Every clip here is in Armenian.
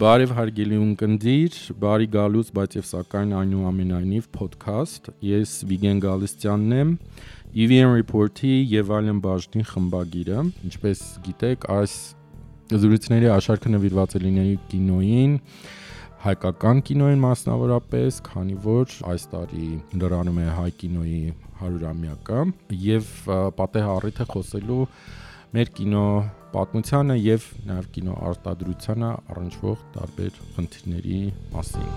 Բարև հարգելի ունկնդիր, բարի գալուց, բայց եւ սակայն այնուամենայնիվ podcast։ Ես Վիգեն Գալստյանն եմ, EVN Report-ի եւ այլն բաժնի խմբագիրը։ Ինչպես գիտեք, այս զրույցների աշարքը նվիրված է լինելու կինոյին, հայկական կինոյին մասնավորապես, քանի որ այս տարի լրանում է հայ կինոյի 100-ամյակը եւ պատեհ առիթ է խոսելու մեր կինո պատմությանը եւ նաեւ կինո արտադրությանը առնչվող տարբեր խնդիրների մասին։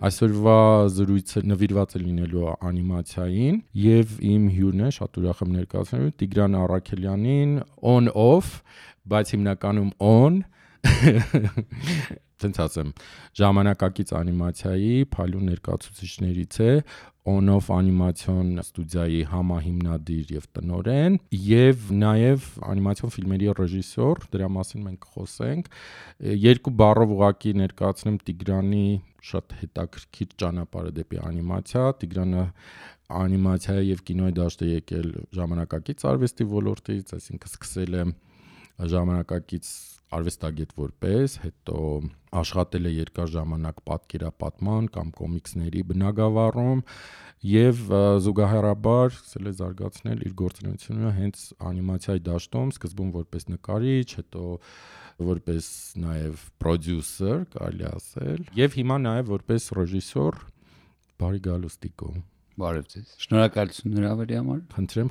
Այսօրվա զրույցը նվիրված է լինելու անիմացիային եւ իմ հյուրն է, շատ ուրախ եմ ներկայացնելու Տիգրան Առաքելյանին, on-off, բայց հիմնականում on Տենց ասեմ, ժամանակակից անիմացիայի փայլուն ներկայացուցիչներից է, on-off անիմացիոն ստուդիայի համահիմնադիր եւ տնօրեն եւ նաեւ անիմացիոն ֆիլմերի ռեժիսոր, դրա մասին մենք խոսենք։ Երկու բառով ուղղակի ներկայացնեմ Տիգրանի շատ հետաքրքիր ճանապարհը դեպի անիմացիա։ Տիգրանը անիմացիայի եւ կինոյի դաշտ է եկել ժամանակակից արվեստի ոլորտից, այսինքն սկսել է ժամանակակից արվեստագետ որպես, հետո աշխատել է երկար ժամանակ պատկերապատման կամ կոմիքսների բնագավառում եւ զուգահեռաբար սկսել է զարգացնել իր գործունեությունը հենց անիմացիայի դաշտում, սկզբում որպես նկարիչ, հետո որպես նաեւ պրոդյուսեր, կարելի ասել, եւ հիմա նաեւ որպես ռեժիսոր։ Բարի գալուս Տիկո։ Բարև ձեզ։ Շնորհակալություն հրավերի համար։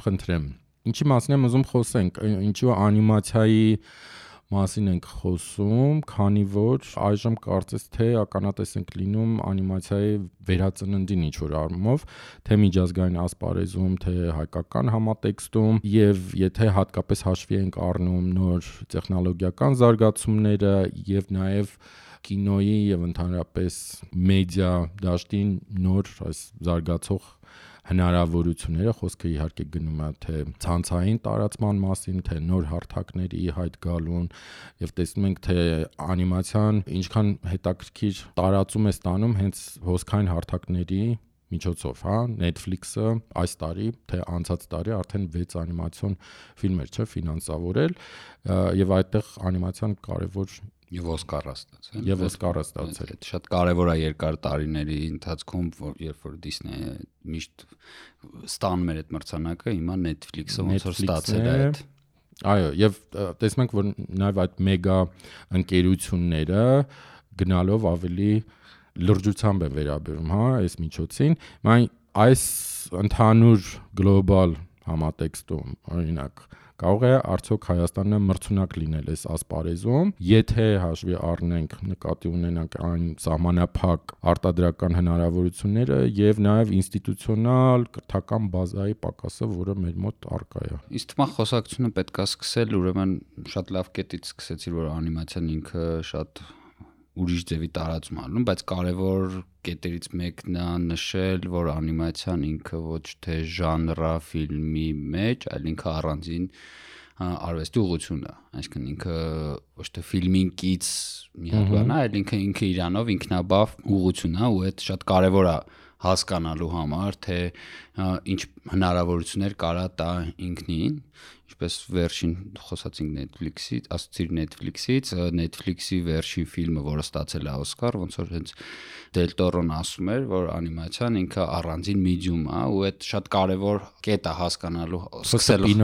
Խնդրեմ։ Ինչի մասին եմ ուզում խոսենք, ինչու անիմացիայի մասին ենք խոսում, քանի որ այժմ կարծես թե ականատես ենք լինում անիմացիայի վերածննդին ինչ-որ առումով, թե միջազգային ասպարեզում, թե հայկական համատեքստում, եւ եթե հատկապես հաշվի ենք առնում նոր տեխնոլոգիական զարգացումները եւ նաեւ կինոյի եւ ընդհանրապես մեդիա դաշտի նոր այս զարգացող հնարավորությունները, խոսքը իհարկե գնում է թե ցանցային տարածման մասին, թե նոր հարթակների հայտ գալուն եւ տեսնում ենք թե անիմացիան ինչքան հետաքրքիր տարածում է ստանում հենց հոսքային հարթակների միջոցով, հա, Netflix-ը այս տարի, թե անցած տարի արդեն 6 անիմացիոն ֆիլմեր չէ ֆինանսավորել եւ այդտեղ անիմացիան կարեւոր Եվ Օսկարը ստացել։ Եվ Օսկարը ստացել։ Շատ կարևոր է երկար տարիների ընթացքում, երբ որ Disney-ը միշտ ստանում էր այդ մրցանակը, հիմա Netflix-ը ոնց որ ստացել է այդ։ Այո, եւ տեսնում ենք, որ նաեւ այդ մեգա ընկերությունները գնալով ավելի լրջությամբ են վերաբերում, հա, այս միջոցին։ Այս ընդհանուր գլոբալ համատեքստում, օրինակ, կարող է արդյոք Հայաստանը մրցունակ լինել այս ասպարեզում, եթե հաշվի առնենք, նկատի ունենանք այն սահմանափակ արտադրական հնարավորությունները եւ նաեւ ինստիտուցիոնալ կրթական բազայի պակասը, որը մեր մոտ առկա է։ Իսկ թվում է խոսակցությունը պետք է սկսել, ուրեմն շատ լավ կետից սկսեցի, որ անիմացիան ինքը շատ ուրիշ ձևի տարածում անում, բայց կարևոր կետերից մեկն է նշել, որ անիմացիան ինքը ոչ թե ժանրա ֆիլմի մեջ, այլ ինքը առանձին արվեստի ուղղություն է, այսինքն ինքը ոչ թե ֆիլմին կից մի հատ բան է, այլ ինքը իրանով ինքնաբավ ուղղություն է ու այդ շատ կարևոր է հասկանալու համար, թե ինչ հնարավորություններ կարա տա ինքնին, ինչպես վերջին խոսացինք Netflix-ից, ասացիր Netflix-ից, Netflix-ի վերջին ֆիլմը, որը ստացել է Օսկար, ոնց որ հենց Դել Տորոն ասում էր, որ անիմացիան ինքը առանձին մեդիում է, ու այդ շատ կարևոր կետ է հասկանալու, սկսելու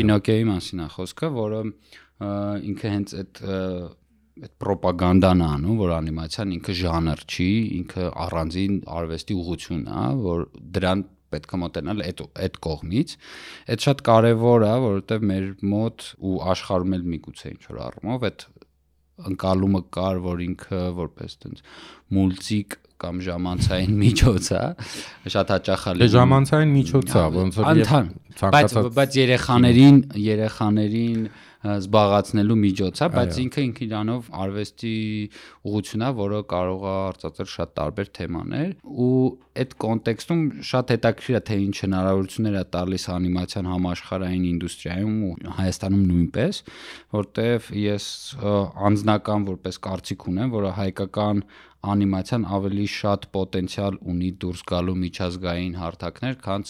Պինոկիոյի մասին է խոսքը, որը ինքը հենց այդ պրոպագանդան է անում, որ անիմացիան ինքը ժանր չի, ինքը առանձին արվեստի ուղղություն է, որ դրան պետք է մոտենալ այդ կողմից։ Այդ շատ կարևոր է, որովհետև մեր մոտ ու աշխարհում էլ միգուցե ինչ որ առումով այդ ընկալումը կար, որ ինքը որպես տենց մուլտիկ կամ ժամանցային միջոց է, շատ հաճախ է լինում։ Ժամանցային միջոց է, ոնց որ բայց երեխաներին զբաղացնելու միջոց է, բայց ինքը իրանով արվեստի ուղղություն է, որը կարող է արծարծել շատ տարբեր թեմաներ ու այդ կոնտեքստում շատ հետաքրքիր է թե ինչ հնարավորություններ է տալիս անիմացիան համաշխարհային ինդուստրիայում ու Հայաստանում նույնպես, որտեղ ես անձնական որպես կարծիք ունեմ, որ հայկական անիմացիան ավելի շատ պոտենցիալ ունի դուրս գալու միջազգային հարթակներ, քան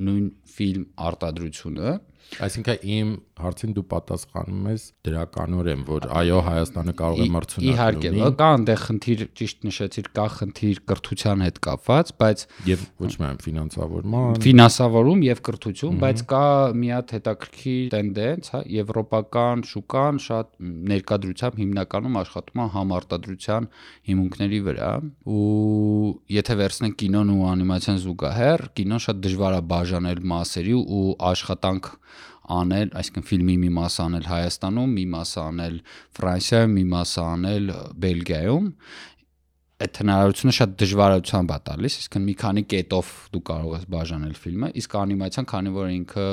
նույն ֆիլմ արտադրությունը։ Այսինքն իմ հարցին դու պատասխանում ես դրականորեն, որ այո, Հայաստանը կարող է մրցունակ լինի։ Իհարկե, կա այնտեղ խնդիր, ճիշտ նշեցիր, կա խնդիր կրթության հետ կապված, բայց եւ ոչ միայն ֆինանսավորում եւ կրթություն, բայց կա մի հատ հետաքրքիր տենդենս, հա, եվրոպական շուկան շատ ներկայությամբ հիմնականում աշխատում է համարտադրության հիմունքների վրա, ու եթե վերցնենք կինոն ու անիմացիան զուգահեռ, կինոն շատ դժվար է բաժանել մասերի ու աշխատանք անել, այսինքն ֆիլմի մի մասը անել Հայաստանում, մի մասը անել Ֆրանսիայում, մի մասը անել Բելգիայում, այդ հնարավորությունը շատ դժվարությամբ է տալիս, այսինքն մի քանի կետով դու կարող ես բաժանել ֆիլմը, իսկ անիմացիան, քանի որ ինքը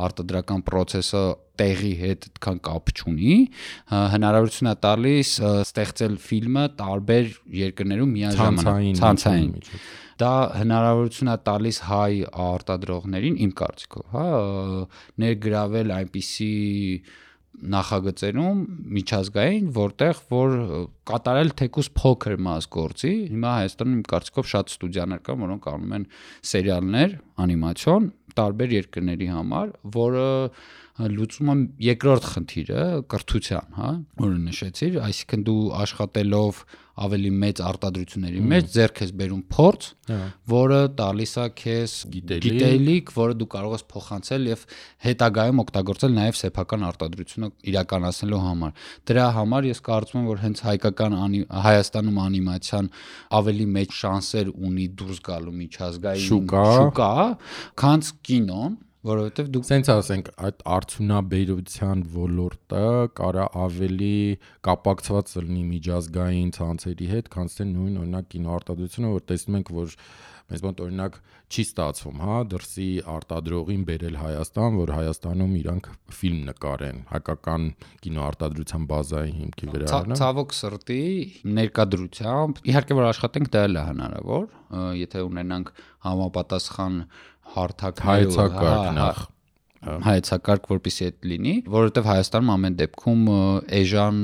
արտադրական process-ը տեղի հետ այդքան կապ չունի, հնարավորություն է տալիս ստեղծել ֆիլմը տարբեր երկրներում միաժամանակ ցանցային։ Դա հնարավորություն է տալիս հայ արտադրողներին, իմ կարծիքով, հա, ներգրավել այնպիսի նախագծերում միջազգային, որտեղ որ կատարել թեկուզ փոքր մաս գործի։ Հիմա Հայաստանում իմ կարծիքով շատ ստուդիաներ կան, որոնք անում են սերիալներ, անիմացիոն տարբեր երկրների համար, որը լուծում է երկրորդ խնդիրը կրթության, հա, որը նշեցիր, այսինքն դու աշխատելով ավելի մեծ արտադրությունների մեջ ձեռք ես բերում փորձ, որը տալիս է քեզ գիտելիք, որը դու կարող ես փոխանցել եւ հետագայում օգտագործել նաեւ սեփական արտադրությունը իրականացնելու համար։ Դրա համար ես կարծում եմ, որ հենց Հայաստանում անիմացիան ավելի մեծ շանսեր ունի դուրս գալու միջազգային շուկա, քան կինոն, որովհետև դուք սենց ասենք այդ արդյունաբերության ոլորտը կարա ավելի կապակցված լինի միջազգային ցանցերի հետ, քան թե նույն օրինակ կինոարտադրությունը, որ տեսնում ենք, որ մեզ մոտ օրինակ չի ստացվում, հա, դրսի արտադրողին բերել Հայաստան, որ Հայաստանում իրանք ֆիլմ նկարեն, հայկական կինոարտադրության բազայի հիմքի վրա, հա։ Ցավոք սրտի ներկայությամբ, իհարկե որ աշխատենք դա էլ է հնարավոր, եթե ունենանք համապատասխան հայեցակարգ, որպեսզի այդ լինի, որովհետև Հայաստանում ամեն դեպքում էժան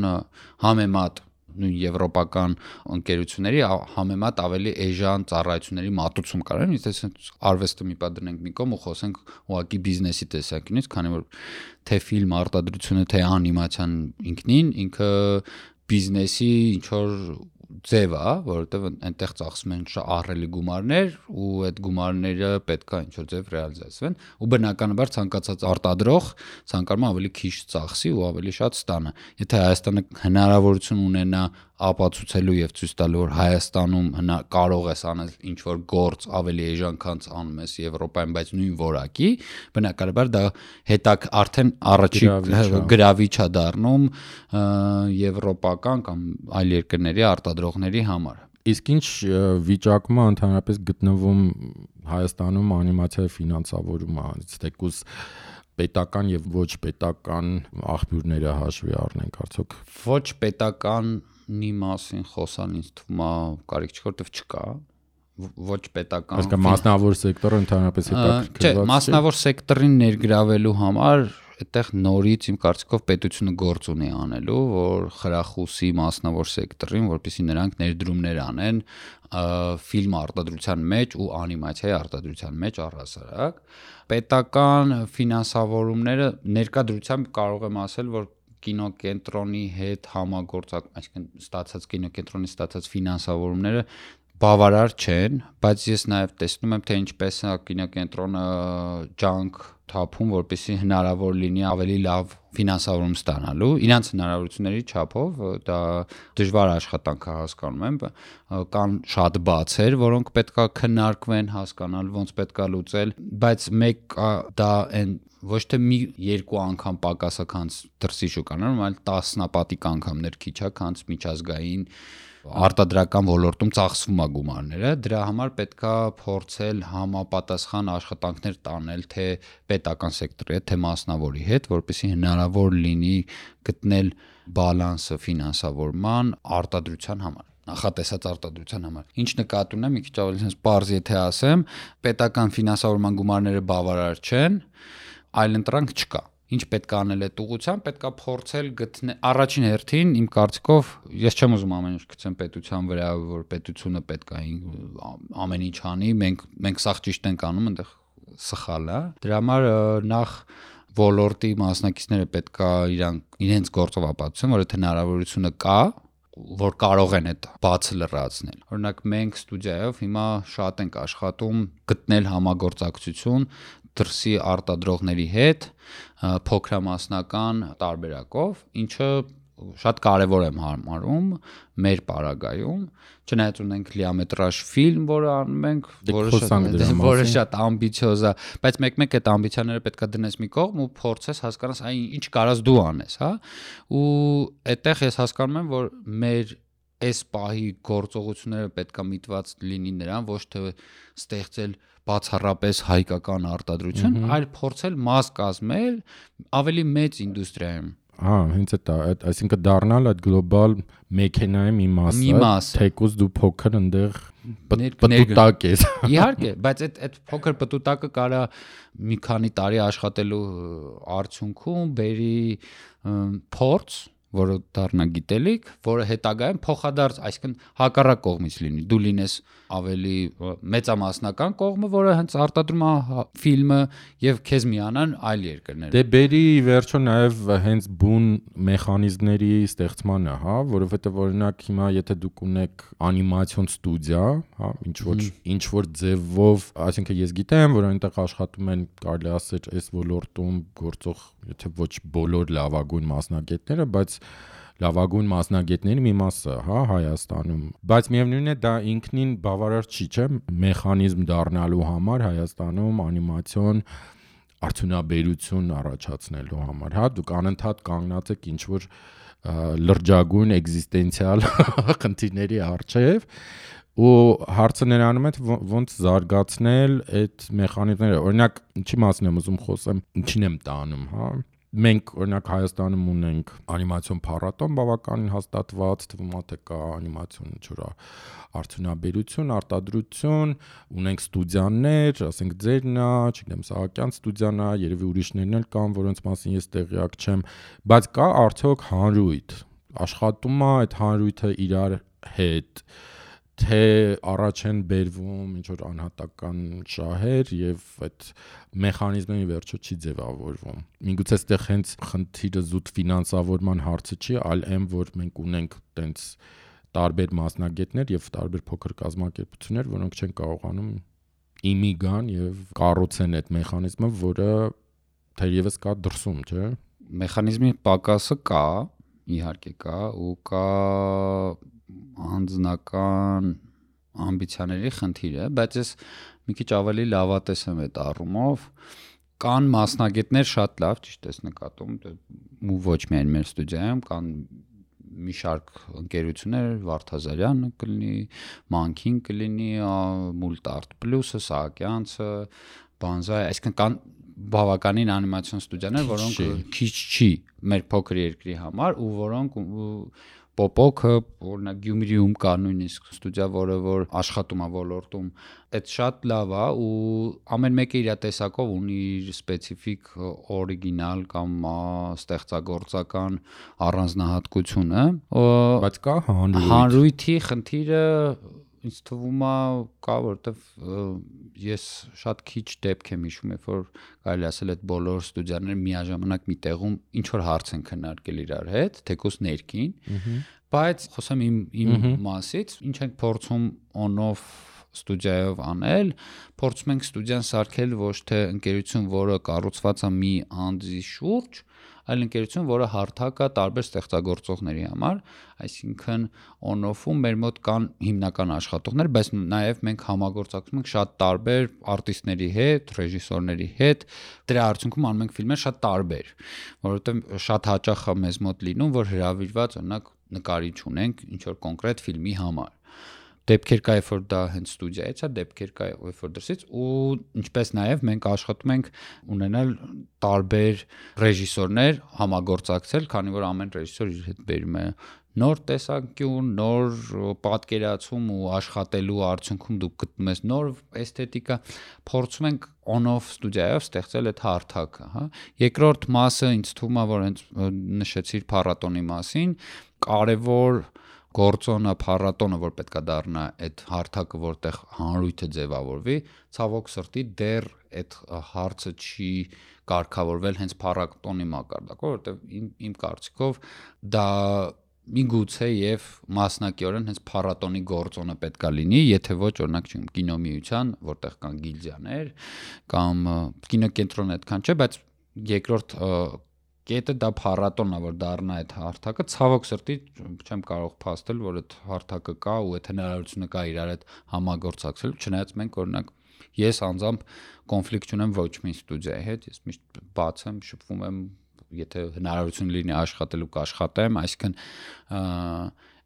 համեմատ նույն եվրոպական ընկերությունների համեմատ ավելի էժան ծառայությունների մատուցում կարեն, եթե արվեստը մի պատ դնենք մի կողմ ու խոսենք ուղղակի բիզնեսի տեսանկյունից, քանի որ թե ֆիլմ արտադրությունը, թե անիմացիան ինքը բիզնեսի ինչ որ ձև է, որովհետև այնտեղ ծախսում են ահռելի գումարներ ու այդ գումարները պետք է ինչ-որ ձև ռեալիզացվեն ու բնականաբար ցանկացած արտադրող ցանկանում է ավելի քիչ ծախսի ու ավելի շատ ստանա։ Եթե Հայաստանը հնարավորություն ունենա ապացուցելու եւ ցույց տալու, որ Հայաստանում կարող ես անել ինչ-որ գործ ավելի էժան, քան անում ես Եվրոպայում, բայց նույն որակի, բնականաբար դա հետակ արդեն առաջի գրավիչ է դառնում եվրոպական կամ այլ երկրների արտադրողների համար։ Իսկ ինչ վիճակում է ընդհանրապես գտնվում Հայաստանում անիմացիայի ֆինանսավորումը, ցտեկուս պետական եւ ոչ պետական աղբյուրները հաշվի առնենք արդյոք։ Ոչ պետականի մասին խոսան ինձ թվում է կարիք չի, որտեվ չկա ոչ պետական։ Իսկ մասնավոր սեկտորը ընդհանրապես հետաքրքրված չէ, մասնավոր սեկտորին ներգրավելու համար այդտեղ նորից իմ կարծիքով պետությունը գործ ունի անելու, որ խրախուսի մասնավոր սեկտորին, որպեսզի նրանք ներդրումներ անեն ֆիլմ արտադրության մեջ ու անիմացիայի արտադրության մեջ առհասարակ։ Պետական ֆինանսավորումները ներկայությամբ կարող եմ ասել, որ կինոկենտրոնի հետ այսինքն ստացած կինոկենտրոնի ստացած ֆինանսավորումները բավարար չեն, բայց ես նաև տեսնում եմ, թե ինչպես է կինոկենտրոնը ջանք թափում, որպեսզի հնարավոր լինի ավելի լավ ֆինանսավորում ստանալու, իրանց հնարավորությունների չափով, դա դժվար աշխատանք է հասկանում եմ, կան շատ բացեր, որոնք պետքա քննարկվեն, հասկանալ ոնց պետքա լուծել, բայց մեկ դա այն ոչ թե մի երկու անգամ պակասը քանց դրսի շուկաներում, այլ տասնապատիկ անգամներ քիչ է քանց միջազգային արտադրական ոլորտում ծախսվում է գումարները, դրա համար պետքա փորձել համապատասխան աշխատանքներ տանել թե պետական սեկտորի հետ, թե մասնավորի հետ, որպեսզի հնարավոր լինի գտնել բալանսը ֆինանսավորման արտադրության համար, նախատեսած արտադրության համար։ Ինչ նկատի ունեմ, մի քիչ ավելի sense պարզ եթե ասեմ, պետական ֆինանսավորման գումարները բավարար չեն, այլ ընտրանք չկա։ ինչ պետք է անել այդ ուղղությամբ, պետք է փորձել գտնել առաջին հերթին իմ կարծիքով ես չեմ ուզում ամեն ինչ գցեմ պետության վրա, որ պետությունը պետք է ամեն ինչ անի, մենք սաղ ճիշտ ենք անում, այնտեղ սխալ է։ Դրա համար նախ ոլորտի մասնակիցները պետք է իրենց գործով ապացուցեն, որ եթե հնարավորությունը կա, որ կարող են այդ բացը լրացնել։ Օրինակ մենք ստուդիայով հիմա շատ ենք աշխատում գտնել համագործակցություն դրսի արտադրողների հետ փոքրամասնական տարբերակով, ինչը շատ կարևոր եմ համարում մեր պարագայում, չնայած ունենք լիամետրաժ ֆիլմ, որը անում ենք, որը շատ ամբիցիոզ է, բայց մեկ-մեկ այդ ամբիցիաները պետք է դնես մի կողմ ու փորձես հասկանաս, այ ինչ կարաս դու անես, հա, ու այդտեղ ես հասկանում եմ, որ մեր այս պահի գործողությունները պետք է միտված լինի նրան, ոչ թե ստեղծել բացառապես հայկական արտադրություն, այլ փորձել մաս կազմել ավելի մեծ ինդուստրիայում։ Հենց այդ, այսինքն դառնալ այդ գլոբալ մեքենայի մի մասը, թեկուզ դու փոքր այնտեղ պտուտակ ես։ Իհարկե, բայց այդ փոքր պտուտակը կարա մի քանի տարի աշխատելու արդյունքում բերի փորձ, որը դառնա գիտելիք, որը հետագայում փոխադարձ, այսինքն հակառակ կողմից լինի, դու լինես ավելի մեծամասնական կողմը, որը հենց արտադրում է ֆիլմը եւ քեզ միանան այլ երկրներ։ Դե բերի վերջո նաեւ հենց բուն մեխանիզմների ստեղծմանը, հա, որովհետեւ օրինակ հիմա եթե դուք ունեք անիմացիոն ստուդիա, հա, ինչ որ ձևով, այսինքն ես գիտեմ, որ այնտեղ աշխատում են, կարելի ասել, այս ոլորտում գործող, եթե ոչ բոլոր լավագույն մասնագետները, բայց լավագույն մասնագետների մի մասը, հա, Հայաստանում, բայց միևնույնն է դա ինքնին բավարար չի, չէ՞, մեխանիզմ դառնալու համար Հայաստանում անիմացիոն արդյունաբերություն առաջացնելու համար, հա, դուք անընդհատ կանգնած եք ինչ որ լրջագույն էգզիստենցիալ խնդիրների առջև ու հարցը նրանում է ոնց զարգացնել այդ մեխանիզմները, օրինակ ինչի մասին եմ ուզում խոսեմ, ինչին եմ տանում, հա, մենք օրինակ Հայաստանում ունենք անիմացիոն փառատոն բավականին հաստատված, թվում է թե կա անիմացիոն ինչ-որ արդյունաբերություն, արտադրություն, ունենք ստուդիաներ, ասենք ձերն է, չգիտեմ, Սահակյան ստուդիան է, երևի ուրիշներն էլ կան, որոնց մասին ես տեղյակ չեմ, բայց կա արդյոք հանրույթ, աշխատում է այդ հանրույթը իրար հետ, թե առաջ են բերվում ինչ-որ անհատական շահեր եւ այդ մեխանիզմը վերջո չի ձևավորվում։ Միգուցե այստեղ հենց խնդիրը զուտ ֆինանսավորման հարցը չի, այլ այն, որ մենք ունենք տենց տարբեր մասնագետներ եւ տարբեր փոքր կազմակերպություններ, որոնք չեն կարողանում իմի գան եւ կառուցեն այդ մեխանիզմը, որը թերևս կա դրսում, չէ՞։ Մեխանիզմի պակասը կա, իհարկե կա, ու կա անձնական ամբիցիաների խնդիր է, բայց ես մի քիչ ավելի լավատես եմ այդ առումով, կան մասնագետներ շատ լավ, ճիշտ ես նկատում, ու ոչ միայն մեր ստուդիայում, կան մի շարք ընկերություններ, Վարդազարյանը կլինի, Մանքին կլինի, Multart Plus-ը, Սահակյանցը, Banzai, այսինքն կան բավականին անիմացիոն ստուդիաներ, որոնք քիչ չի մեր փոքր երկրի համար ու որոնք Պոպոքը, օրինակ Գյումրիում կա նույնիսկ ստուդիա, որը որ աշխատում է ոլորտում, այդ շատ լավ է ու ամեն մեկը իր տեսակով ունի իր սպეციფიկ օրիգինալ կամ ստեղծագործական առանձնահատկությունը, բայց կա հանրույթի խնդիրը ինձ թվում է կա, որովհետև ես շատ քիչ դեպք եմ հիշում, երբ որ կարելի ասել այդ բոլոր ստուդիաները միաժամանակ մի տեղում ինչ որ հարց են քննարկել իրար հետ, թեկուզ ներքին, բայց խոսեմ իմ մասից, ինչ ենք փորձում on-off ստուդիայով անել, փորձում ենք ստուդիան սարքել ոչ թե ընկերություն, որը կառուցված է մի անձի շուրջ, այլ ընկերություն, որը հարթակ է տարբեր ստեղծագործողների համար, այսինքն on-off-ում մեր մոտ կան հիմնական աշխատողներ, բայց նաև մենք համագործակցում ենք շատ տարբեր արտիստների հետ, ռեժիսորների հետ, դրա արդյունքում անում ենք ֆիլմեր շատ տարբեր, որովհետև շատ հաճախ է մեզ մոտ լինում, որ հրավիրված օրինակ նկարիչ ունենք ինչ որ կոնկրետ ֆիլմի համար։ Դեպքեր կա, երբ որ դա հենց ստուդիայից է, դեպքեր կա, երբ որ դրսից ու ինչպես նաև մենք աշխատում ենք ունենալ տարբեր ռեժիսորներ համագործակցել, քանի որ ամեն ռեժիսոր իր հետ բերում է նոր տեսանկյուն, նոր պատկերացում ու աշխատելու արդյունքում դուք գտնում ես նոր էսթետիկա, փորձում ենք on-off ստուդիայով ստեղծել այդ հարթակը, հա։ Երկրորդ մասը ինձ թվում է, որ հենց նշեցիր փառատոնի մասին, կարևոր գործոնը փառատոնը, որ պետքա դառնա այդ հարթակը, որտեղ հանրույթը ձևավորվի, ցավոք սրտի դեռ այդ հարցը չի կարգավորվել հենց փառատոնի մակարդակով, որովհետև իմ կարծիքով դա միգուցե եւ մասնակիորեն հենց փառատոնի գործոնը պետքա լինի, եթե ոչ օրինակ կինոմիության, որտեղ կան գիլդիաներ կամ կինոկենտրոնը այդքան չէ, բայց երկրորդ կետը դա փառատոնն է, որ դառնա այդ հարթակը, ցավոք սրտի չեմ կարող փաստել, որ այդ հարթակը կա ու այդ հնարավորությունը կա իրար հետ համագործակցել, չնայած մենք օրինակ ես անձամբ կոնֆլիկտ չունեմ ոչ մի ստուդիայի հետ, ես միշտ բաց եմ, շփվում եմ, եթե հնարավորություն լինի աշխատելու կաշխատեմ, այսինքն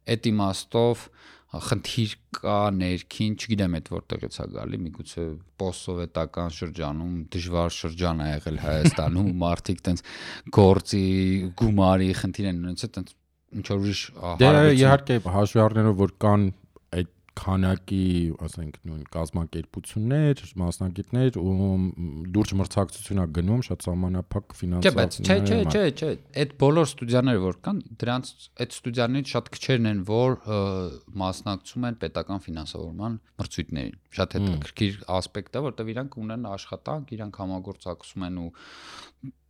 այդ իմաստով խնդիր կա ներքին, չգիտեմ այդ որտեղից է գալի, միգուցե պոստսովետական շրջանում դժվար շրջան է եղել Հայաստանում, մարդիկ տենց գործի գումարի խնդիր են ունեցել, տենց ինչ որ ուրիշ հարաբերություն։ Իհարկե հաշվի առնելով, որ կան այդ քանակի, ասենք, նույն կազմակերպություններ, մասնագետներ ու լուրջ մրցակցություն է գնում, շատ սահմանափակ ֆինանսավորություն։ Չէ, այդ բոլոր ստուդիաները որ կան, դրանց այդ ստուդիաներից շատ քչերն են, որ մասնակցում են պետական ֆինանսավորման մրցույթներին։ Շատ հետաքրքիր ասպեկտ է, որտեղ իրանք ունեն աշխատանք, իրանք համագործակցում են ու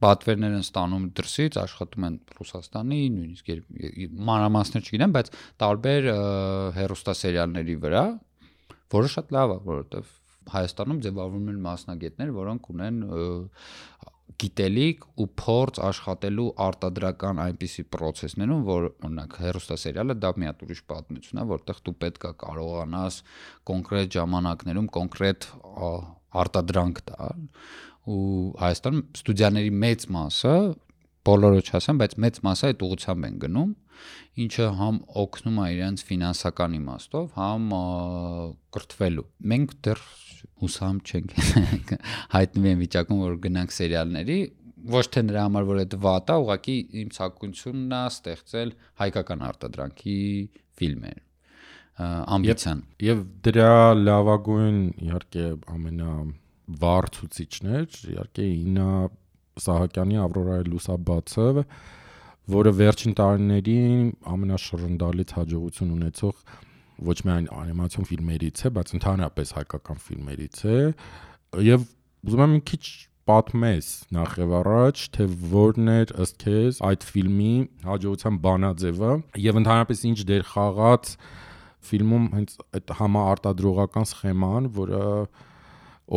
պատվերներ են ստանում դրսից, աշխատում են Ռուսաստանի, նույնիսկ մանրամասներ չգիտեմ, բայց տարբեր հեռուստասերիալների վրա, որը շատ լավ է, որովհետև Հայաստանում ձևավորվում են մասնագետներ, որոնք ունեն գիտելիք ու փորձ աշխատելու արտադրական այնպիսի process-ներում, որ օրինակ հեռուստասերիալը դա մի հատ ուրիշ պատմություն է, որտեղ դու պետք է կարողանաս կոնկրետ ժամանակներում կոնկրետ արտադրանք տալ ու Հայաստանում ստուդիաների մեծ մասը, բոլորը չասեմ, բայց մեծ մասը այդ ուղղությամբ են գնում, ինչը համ օգնում է իրենց ֆինանսական իմաստով, համ կրթվելու։ Մենք դեռ հուսամ չենք հայտնվի են վիճակում, որ գնանք սերիալների, ոչ թե նրա համար, որ այդ վատ է, ուղղակի իմ ցանկությունն է ստեղծել հայկական արտադրանքի ֆիլմեր, ամբիցիան։ Եվ դրա լավագույն իհարկե ամենավառ ցուցիչներ, իհարկե Իննա Սահակյանի Ավրորայի լուսաբացը, որը վերջին տարիներին ամենաշռնդալից հաջողություն ունեցող ոչ միայն անիմացիոն ֆիլմերից է, բայց ընդհանրապես հայկական ֆիլմերից է, եւ ուզում եմ մի քիչ պատմես նախ եւ առաջ, թե որն էր ըստ քեզ այդ ֆիլմի հաջողության բանաձևը եւ ընդհանրապես ինչ դեր խաղաց ֆիլմում հենց այդ համաարտադրողական սխեման, որը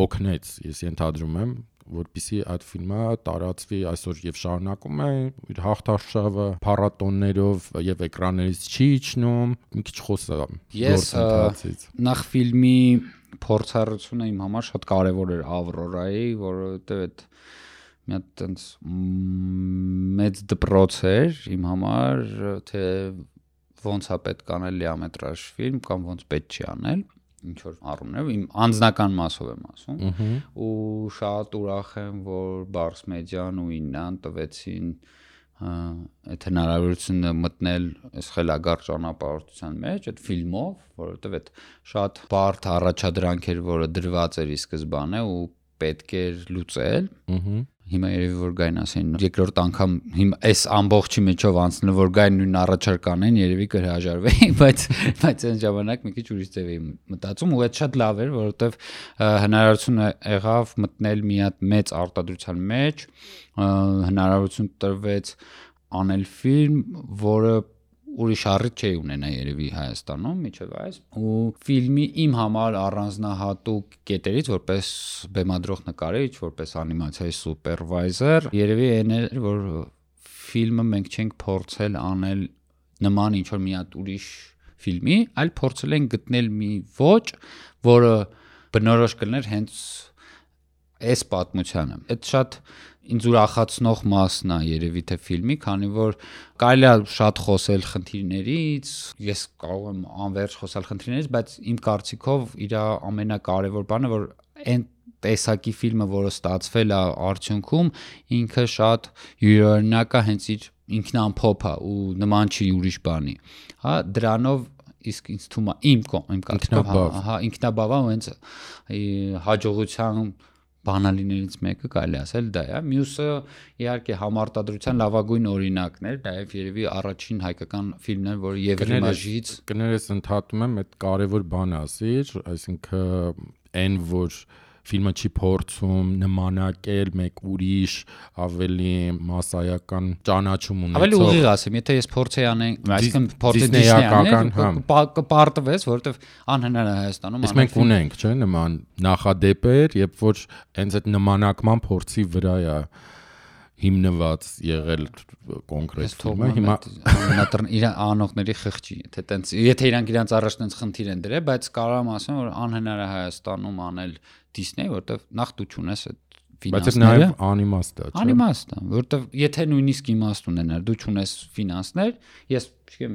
օգնեց, ես ենթադրում եմ, որպեսզի այդ ֆիլմը տարածվի այսօր եւ շարունակում է իր հաղթարշավը փառատոններով եւ էկրաններից չի իջնում, մի քիչ խոսամ գործընթացից։ Նախ ֆիլմի փորձառությունը իմ համար շատ կարեւոր էր Ավրորայի, որովհետեւ այդ մի հատ տենց մեծ դպրոց էր իմ համար, թե ոնց է պետք անել լիամետրաժ ֆիլմ կամ ոնց պետք չի անել, ինչ որ առումներով իմ անձնական մասով եմ ասում, ու շատ ուրախ եմ, որ Bars Media-ն ու Իննան տվեցին այդ հնարավորությունը մտնել այս խելագար ճանապարհորդության մեջ այդ ֆիլմով, որովհետև այդ շատ բարդ առաջադրանք էր, որը դրված էր ի սկզբանե ու պետք էր լուծել։ Հիմա երևի որ գային ասեն երկրորդ անգամ հիմա այս ամբողջի միջով անցնել որ գային նույն առաջարկանեն երևի կհրաժարվեի, բայց այն ժամանակ մի քիչ ուրիշ ձև էի մտածում ու այդ շատ լավ էր, որովհետև հնարավորություն եղավ մտնել մի հատ մեծ արտադրության մեջ, հնարավորություն տրվեց անել ֆիլմ, որը ուրիշ առիթ չէի ունենա երևի Հայաստանում միջև այս ու ֆիլմի իմ համար առանձնահատուկ կետերից որպես բեմադրող նկարիչ, որպես անիմացիայի սուպերվայզեր երևի այն էր, որ ֆիլմը մենք չենք փորձել անել նման ինչ որ մի հատ ուրիշ ֆիլմի, այլ փորձել ենք գտնել մի ոճ, որը բնորոշ կլներ հենց այս պատմությանը։ Այդ շատ ինձ ուրախացնող մասն է երևի թե ֆիլմի, քանի որ կարելի է շատ խոսել խնդիրներից, ես կարող եմ անվերջ խոսալ խնդիրներից, բայց իմ կարծիքով իր ամենակարևոր բանը որ այն տեսակի ֆիլմը, որը ստացվել է արդյունքում, ինքը շատ յուրօրինակ է, հենց իր ինքնամփոփ է ու նման չի ուրիշ բանի։ Հա, դրանով իսկ ինձ թվում է իմ կարծիքով, ինքնաբավ է, հենց հաջողության բանալիներից մեկը կարելի ասել դա է։ Մյուսը իհարկե համարտադրության լավագույն օրինակն էր, նաև երևի առաջին հայկական ֆիլմն էր, որը Եվրիմաժից կներես ընդհատում եմ, այդ կարևոր բան ասիր, այսինքն այն որ ֆիլմը չի փորձում նմանակել մեկ ուրիշ ավելի մասսայական ճանաչում ունեցող։ Ավելի ուղիղ ասեմ, եթե ես փորձեի անեն, այսինքն փորձի դիսնեյական կպարտվես, որովհետև անհնար է Հայաստանում։ Իսկ մենք ունենք, չէ՞, նման նախադեպեր, երբ որ հենց այդ նմանակման փորձի վրա է հիմնված եղել կոնկրետ ֆիլմը։ Հիմա իր անողների խղճի, եթե իրանք իրանց առաջ տենց խնդիր են դրել, բայց կարող եմ ասեմ, որ անհնար է Հայաստանում անել Disney, որտեվ նախ դու չունես այդ ֆինանսները։ Բայց նաև անիմաստ է, չէ՞։ Անիմաստ է, որտեվ եթե նույնիսկ իմաստ ունենար, դու չունես ֆինանսներ, ես չգիտեմ,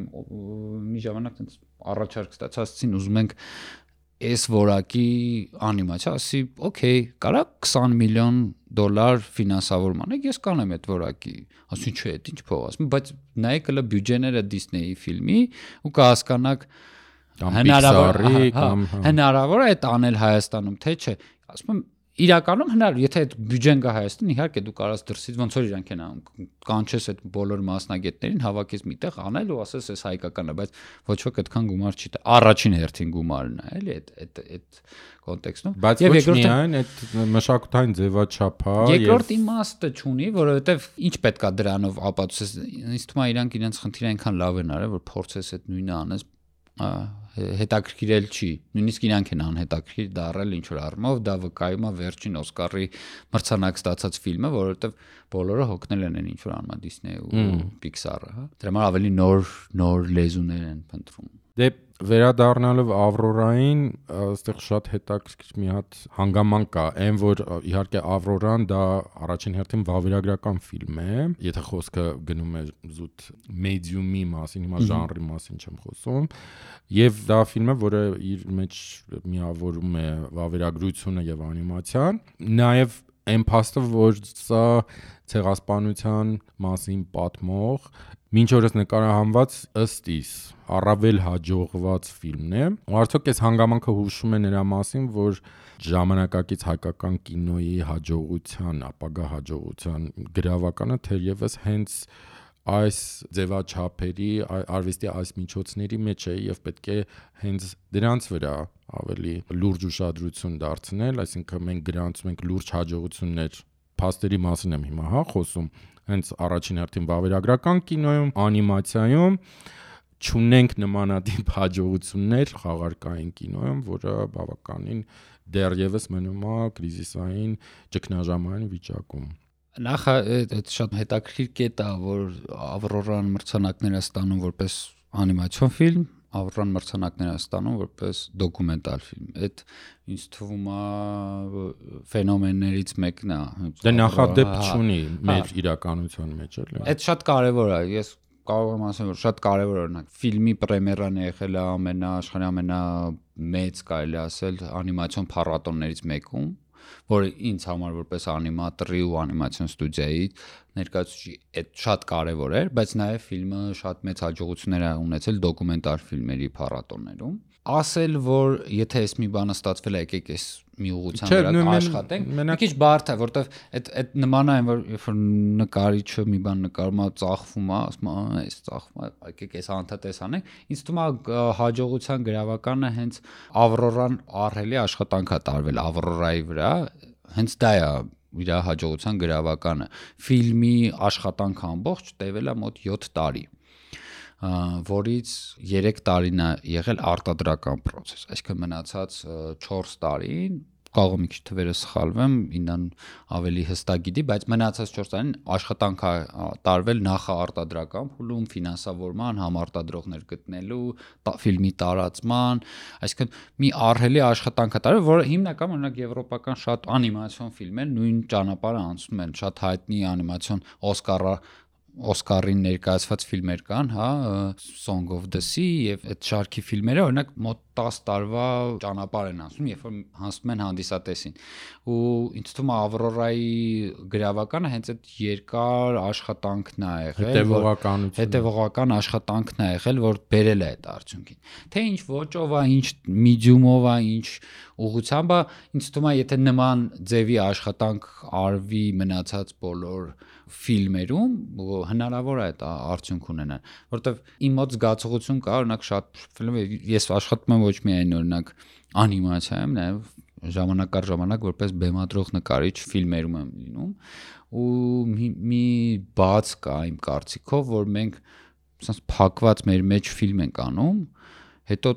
մի ժամանակ տենց առաջարկ ստացածին ուզում ենք այս որակի անիմացիա, ասի, օքեյ, կարա $20 միլիոն ֆինանսավորում անեք, ես կանեմ այդ որակի, ասում չէ, այդ ինչ փող ասում, բայց նայեք հələ բյուջեները Disney-ի ֆիլմի ու կհասկանաք հնարավոր է այդ անել Հայաստանում, թե չէ, ասում եմ իրականում հնարավոր, եթե այդ բյուջեն գա Հայաստան, իհարկե դու կարաս դրսից ոնց որ իրանք են անում, կանչես այդ բոլոր մասնագետներին, հավաքես միտեղ անել ու ասես էս հայկականն է, բայց ոչ ոք այդքան գումար չի տա։ Առաջին հերթին գումարն է, էլի այդ կոնտեքստում։ Բայց ոչ միայն այդ մշակութային ձևաչափը, երկրորդ իմաստը չունի, որովհետև ինչ պետքա դրանով ապացուցես, ինձ թվում է իրանք իրենց խնդիրը այնքան լավ են արել, որ փորձես այդ նույնը անես հետաքրքիրել չի, նույնիսկ իրանք են անհետաքրքիր դառել ինչ որ առումով, դա վկայում է վերջին Օսկարի մրցանակ ստացած ֆիլմը, որովհետև բոլորը հոգնել են ինչ որ անում Disney ու Pixar-ը, հա։ Դրա համար ավելի նոր լեզուներ են փնտրում։ Դե վերադառնալով Ավրորային, այստեղ շատ հետաքրքիր մի հատ հանգամանք կա, այն որ իհարկե Ավրորան դա առաջին հերթին վավերագրական ֆիլմ է, եթե խոսքը գնում է զուտ մեդիումի մասին, հիմա ժանրի մասին չեմ խոսում, եւ դա ֆիլմ է, որը իր մեջ միավորում է վավերագրությունը եւ անիմացիան, նաեւ այն փաստը, որ սա ցեղասպանության մասին պատմող մինչ օրս նկարահանված ըստ իս առավել հաջողված ֆիլմն է։ Ու արդյոք այս հանգամանքը հուշում է նրա մասին, որ ժամանակակից հայկական կինոյի հաջողության, ապագա հաջողության գրավականը թերևս հենց այս ձևաչափերի, արվեստի այս միջոցների մեջ է եւ պետք է հենց դրանց վրա ավելի լուրջ ուշադրություն դարձնել, այսինքն մենք գրանցում ենք լուրջ հաջողություններ, փաստերի մասին եմ հիմա, հա, խոսում, հենց առաջին հերթին վավերագրական կինոյում, անիմացիայում չունենք նմանատիպ հաջողություններ խաղարկային կինոյում, որը բավականին դեռևս մնում է կրիզիսային ճգնաժամային վիճակում։ Նախ այդ շատ հետաքրքիր կետ է, որ Ավրորան մրցանակներ է ստանում որպես անիմացիոն ֆիլմ, Ավրորան մրցանակներ է ստանում որպես դոկումենտալ ֆիլմ։ Այդ ինձ թվում է ֆենոմեններից մեկն է։ Դա նախադեպ չունի մեր իրականության մեջ, էլի։ Այդ շատ կարևոր է։ Ես կարող եմ ասել, որ շատ կարևոր օրինակ ֆիլմի պրեմիերան եղել է աշխարհի ամենամեծ, կարելի ասել, անիմացիոն փառատոններից մեկում, որը ինձ համար որպես անիմատորի ու անիմացիոն ստուդիայի ներկայացուցիչ այդ շատ կարևոր էր, բայց նաև ֆիլմը շատ մեծ հաջողություններ է ունեցել դոկումենտար ֆիլմերի փառատոններում։ Ասել, որ եթե այս մի բանը ստացվել է, եկեք այս մի ուղղության վրա աշխատենք, մի քիչ բարդ է, որովհետև այդ նման է, որ երբ որ նկարիչը մի բան նկարում է, ծախվում է, ասում է, այս ծախվում է, եկեք այս հանդատես անենք։ Ինձ թվում է հաջողության գրավականը հենց Ավրորան ահռելի աշխատանք է տարվել Ավրորայի վրա, հենց դա է իր հաջողության գրավականը։ Ֆիլմի աշխատանքը ամբողջ տևել է մոտ 7 տարի, որից 3 տարին է եղել արտադրական process, այսինքն մնացած 4 տարին, կարող եմ մի քիչ թվերը սխալվեմ, ինքնան ավելի հստակ գիտի, բայց մնացած 4 տարին աշխատանք է տարվել նախաարտադրական փուլում, ֆինանսավորման, համարտադրողներ գտնելու, ֆիլմի տարածման, այսինքն մի ահռելի աշխատանք է տարվել, որը հիմնական օրինակ եվրոպական շատ անիմացիոն ֆիլմեր նույն ճանապարհը անցնում են, շատ հայտնի անիմացիոն Օսկարը Օսկարին ներկայացված ֆիլմեր կան, հա, Song of the Sea եւ այդ շարքի ֆիլմերը օրինակ մոտ 10 տարվա ճանապարհ են անցնում, երբ որ հասնում են հանդիսատեսին։ Ու ինձ թվում է Ավրորայի գրավականը հենց այդ երկար աշխատանքն է եղել, հետևողական աշխատանքն է եղել, որ բերել է այդ արդյունքին։ Թե ինչ ոճով է, ինչ medium-ով է, ինչ ուղղությամբ է, ինձ թվում է եթե նման ձևի աշխատանք արվի մնացած բոլոր ֆիլմերում հնարավոր է այդ արդյունք ունենալ, որովհետև իմ մոտ զգացողություն կա, օրինակ շատ ֆիլմ ես աշխատում եմ ոչ միայն օրինակ անիմացիայում, նաև ժամանակ առ ժամանակ որպես բեմադրող նկարիչ ֆիլմերում եմ լինում ու մի բաց կա իմ կարծիքով, որ մենք ասես փակված մեր մեջ ֆիլմ ենք անում, հետո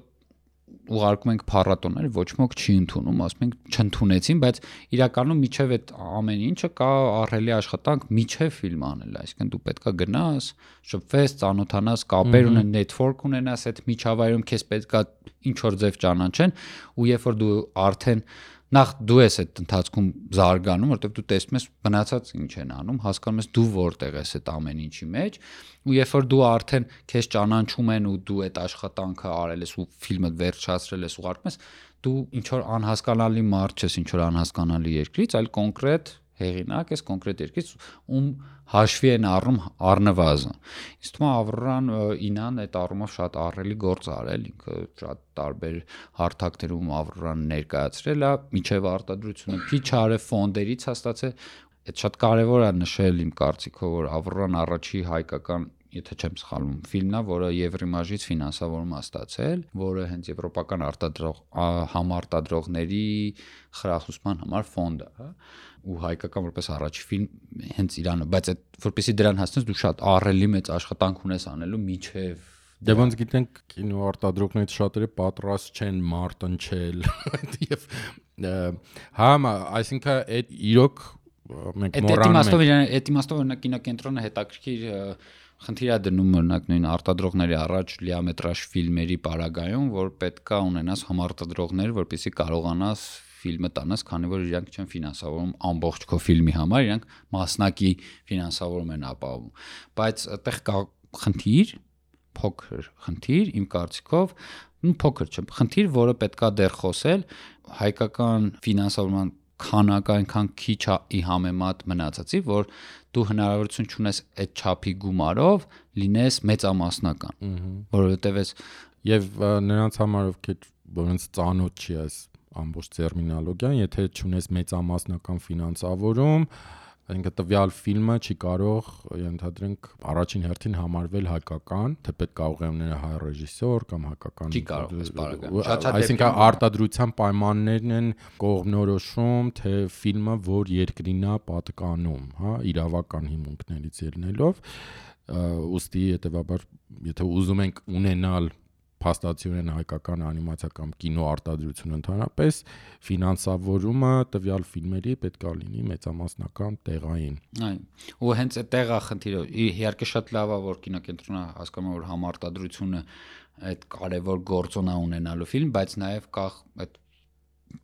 ուղարկում ենք փառատոներ, ոչ ոք չի ընդունում, ասում ենք չընդունեցին, բայց իրականում միջև այդ ամեն ինչը կա ահռելի աշխատանք միջև ֆիլմ անել, այսինքն դու պետքա գնաս, շփվես, ծանոթանաս, կապեր ունեն, network ունենաս այդ միջավայրում, քեզ պետքա ինչ որ ձև ճանաչեն, ու երբ որ դու արդեն նախ դու ես այդ ընթացքում զարգանում, որովհետև դու տեսնում ես մնացած ինչ են անում, հասկանում ես դու որտեղ ես այդ ամեն ինչի մեջ, ու երբ որ դու արդեն քեզ ճանաչում են ու դու այդ աշխատանքը արել ես ու ֆիլմը վերջացրել ես ու ուղարկում ես, դու ինչ որ անհասկանալի մարդ չես, ինչ որ անհասկանալի երկրից, այլ կոնկրետ հեղինակ ես, կոնկրետ երկրից, ում հաշվի են առնում առնվազն։ Իսկ թվում է Ավրորան ինան այդ առումով շատ ահռելի գործ արել, ինքը շատ տարբեր հարթակներում Ավրորան ներկայացրել է, միջև արտադրությունը քիչ արել ֆոնդերից հաստատել, այդ շատ կարևոր է նշել իմ կարծիքով, որ Ավրորան առաջի հայկական եթե չեմ սխալվում, ֆիլմն է, որը Եվրիմաժից ֆինանսավորում է ստացել, որը հենց եվրոպական համարտադրողների խրախուսման համար ֆոնդ է, հա, ու հայկական որպես առաջի ֆիլմ հենց Իրանը, բայց այդ որպեսզի դրան հասնես դու շատ ահռելի մեծ աշխատանք ունես անելու միջև Դե ոնց գիտենք կինոարտադրողներից շատերը պատրաստ չեն մարտնչել եւ հա, այսինքն այդ իրոք մենք մոռանում ենք այդ իմաստով օրինակ կինոկենտրոնը հետաքրքիր խնդիր է դնում օրինակ նույն արտադրողների առաջ լիամետրաժ ֆիլմերի պարագայում, որ պետքա ունենաս համարտադրողներ, որպեսզի կարողանաս ֆիլմը տանաս, քանի որ իրանք չեն ֆինանսավորում ամբողջ քո ֆիլմի համար, իրանք մասնակի ֆինանսավորում են ապահովում։ Բայց այդտեղ կա խնդիր, փոքր խնդիր, իմ կարծիքով, փոքր չէ, խնդիր, որը պետքա դեռ խոսել, հայկական ֆինանսավորման քանակը այնքան քիչ է համեմատ մնացածի, որ դու հնարավորություն չունես այդ չափի գումարով լինես մեծամասնական, որովհետև եւ նրանց համար ովքեր որոնց ծանոթ չի այս ամբողջ տերմինոլոգիան, եթե չունես մեծամասնական ֆինանսավորում, այնինքն տվյալ ֆիլմը չի կարող ենթադրենք առաջին հերթին համարվել հայկական, թեպետ կարող է ունենալ հայ ռեժիսոր կամ հայկական չի կարող, այսինքն արտադրության պայմաններն են կողմնորոշում, թե ֆիլմը որ երկրին է պատկանում, հա, իրավական հիմունքներից ելնելով, ուստի հետեւաբար եթե ուզում ենք ունենալ փաստացիորեն հայկական անիմացիա կամ կինո արտադրություն ընդհանրապես ֆինանսավորումը տվյալ ֆիլմերի պետք է լինի մեծամասնական տեղային։ Այո, ու հենց այդ տեղա խնդիրը իհարկե շատ լավ է որ կինոկենտրոնը հասկանում է որ համարտադրությունը այդ կարևոր գործոն է ունենալու ֆիլմ, բայց նաև կա այդ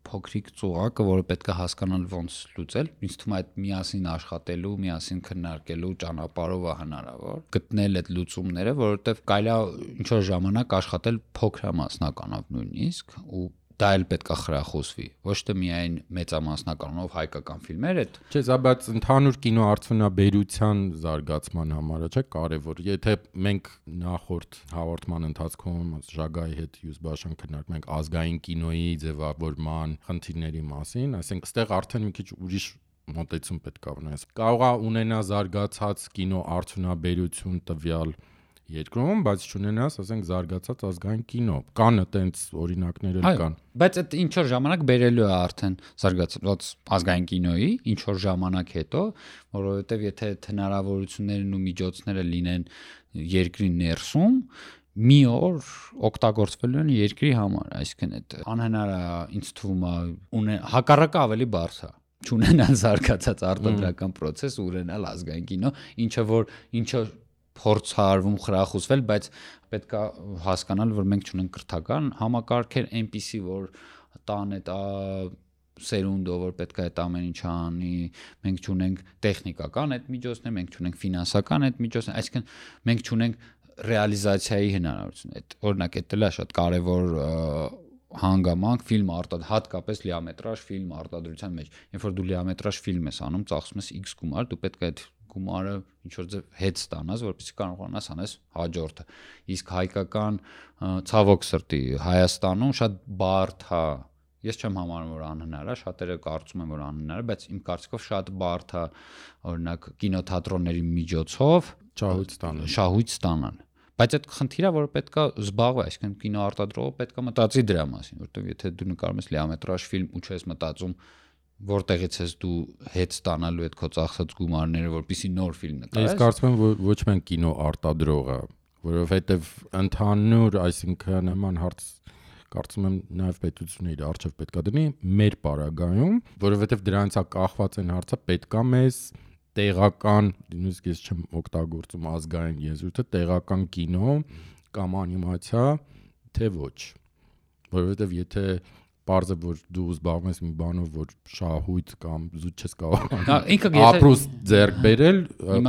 փոքրիկ ծուղակը, որը պետք է հասկանալ ոնց լուծել, ինձ թվում է այդ միասին աշխատելու, միասին քննարկելու ճանապարհով է հնարավոր գտնել այդ լուծումները, որովհետև կարելի է ինչ որ ժամանակ աշխատել փոքրամասնականով նույնիսկ ու դա էլ պետք է խրախուսվի, ոչ թե միայն մեծամասնականով հայկական ֆիլմեր այդ չէ, սա բայց ընդհանուր կինոարդյունաբերության զարգացման համար է, չէ, կարևոր։ Եթե մենք նախորդ հաղորդման ընթացքում Ժագայի հետ Յուզբաշան քննարկում ենք ազգային կինոյի ձևավորման խնդիրների մասին, այսինքն այստեղ արդեն մի քիչ ուրիշ մոտեցում պետք է ունենաս։ Կարող է ունենա զարգացած կինոարդյունաբերություն տվյալ երկրում, բայց չունենաս, ասենք, զարգացած ազգային կինո։ Կան այտենց օրինակներ էլ կան։ Բայց այդ ինչ որ ժամանակ բերելու է արդեն զարգացած ազգային կինոյի, ինչ որ ժամանակ հետո, որովհետև եթե հնարավորություններն ու միջոցները լինեն երկրի ներսում, մի օր օգտագործվելու են երկրի համար, այսինքն այդ անհնար է, ինձ թվում է, հակառակը ավելի բարձ է չունենալ զարգացած արտադրական process ու ունենալ ազգային կինո, ինչը փորձ արվում խրախուսվել, բայց պետք է հասկանալ, որ մենք չունենք կրթական համակարգեր այնպիսի, որ տան այդ սերունդով, որ պետք է այդ ամեն ինչը անի, մենք չունենք տեխնիկական այդ միջոցներ, մենք չունենք ֆինանսական այդ միջոցներ, այսինքն մենք չունենք ռեալիզացիայի հնարավորություն։ Այդ օրինակ էդ էլ է շատ կարևոր հանգամանք ֆիլմ հատկապես լիամետրաժ ֆիլմ արտադրության մեջ։ Երբ որ դու լիամետրաժ ֆիլմ ես անում, ծախսում ես X գումար, դու պետք է այդ գումարը ինչ որ ձև հետ ստանաս, որպեսզի կարողանաս անես հաջորդը։ Իսկ հայկական ցավոք սրտի Հայաստանում շատ բարդ է։ Ես չեմ համարում, որ անհնար է, շատերը կարծում են, որ անհնար է, բայց իմ կարծիքով շատ բարդ է, օրինակ կինոթատրոնների միջոցով շահույթ ստանան։ Բայց այդ խնդիրը, որ պետքա զբաղվի, այսինքն կինոարտադրողը պետքա մտածի դրա մասին, որովհետև եթե դու նկարում ես լիամետրաժ ֆիլմ ու չես մտածում որտեղից ես դու հետ ստանալու այդ քո ծախսած գումարները, որպեսզի նոր ֆիլմ նկարես։ Ես կարծում եմ, որ ոչ միայն կինոարտադրողը, որովհետև ընդհանուր, այսինքն նման հարց կարծում եմ նաև պետությունը իր արժեվ պետքա դնի մեր պարագայում, որովհետև դրանից է կախված այն հարցը, պետքա մեզ տեղական, նույնիսկ ես չեմ օգտագործում ազգային եզրույթը, տեղական կինո կամ անիմացիա, թե ոչ։ Որովհետև եթե պարզ է, որ դու զբաղվում ես մի բանով, որ շահույթ կամ զուտ չես կարող ապրուս ձեռք բերել,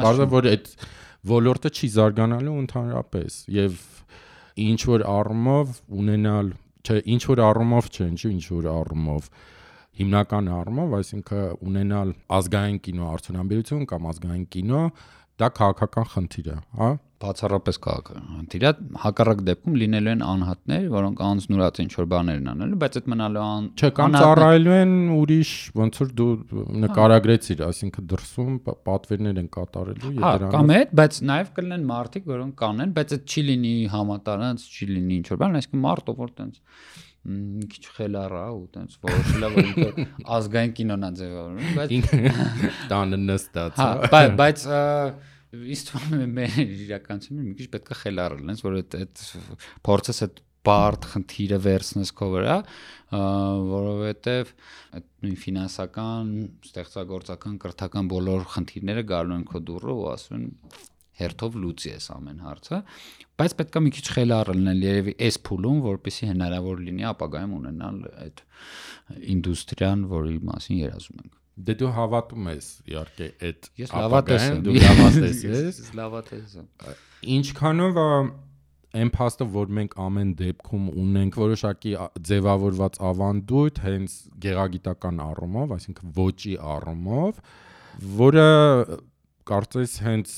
պարզ է, որ այդ ոլորտը չի զարգանալու ընդհանրապես եւ ինչ որ առումով ունենալ, չէ, ինչ որ առումով չէ, ինչ որ առումով հիմնական առումով, այսինքն ունենալ ազգային կինո արդյունաբերություն կամ ազգային կինո, դա քաղաքական խնդիր է, հա? Բացառապես քաղաքական խնդիր է, հակառակ դեպքում լինելու են անհատներ, որոնք անձնուրաց ինչ որ բաներ են անելու, բայց այդ մնալու չէ, կամ ծառայելու են ուրիշ, ոնց որ դու նկարագրեցիր, այսինքն դրսում պատվերներ են կատարելու եւ դրանով։ Կամ այդ, բայց նաեւ կլինեն մարդիկ, որոնք կանեն, բայց այդ չի լինի համատարած, չի լինի ինչ որ բան, այսինքն մարդը որ տենց մի քիչ խելառ է ու տենց որոշել է, որ ինքը ազգային կինոն է ձևավորում, բայց տանը նստած, հա, բայց ինձ թվում է մեր իրականությունում մի քիչ պետք է խելառ լինես, որ այդ փորձես այդ բարդ խնդիրը վերցնես քո վրա, որովհետև այդ նույն ֆինանսական, ստեղծագործական, կրթական բոլոր խնդիրները գալու են քո դուռը ու ասում են հերթով լուծի ես ամեն հարցը, բայց պետք է մի քիչ խելառ լինել երևի այս փուլում, որպեսզի հնարավոր լինի ապագայում ունենալ այդ ինդուստրիան, որի մասին երազում ենք։ Դե դու հավատում ես իհարկե այդ ես լավատես եմ, դու լավատես ես, լավատես եմ։ Ինչքանով այն փաստը, որ մենք ամեն դեպքում ունենք որոշակի ձևավորված ավանդույթ հենց գեղագիտական առումով, այսինքն ոճի առումով, որը կարծես հենց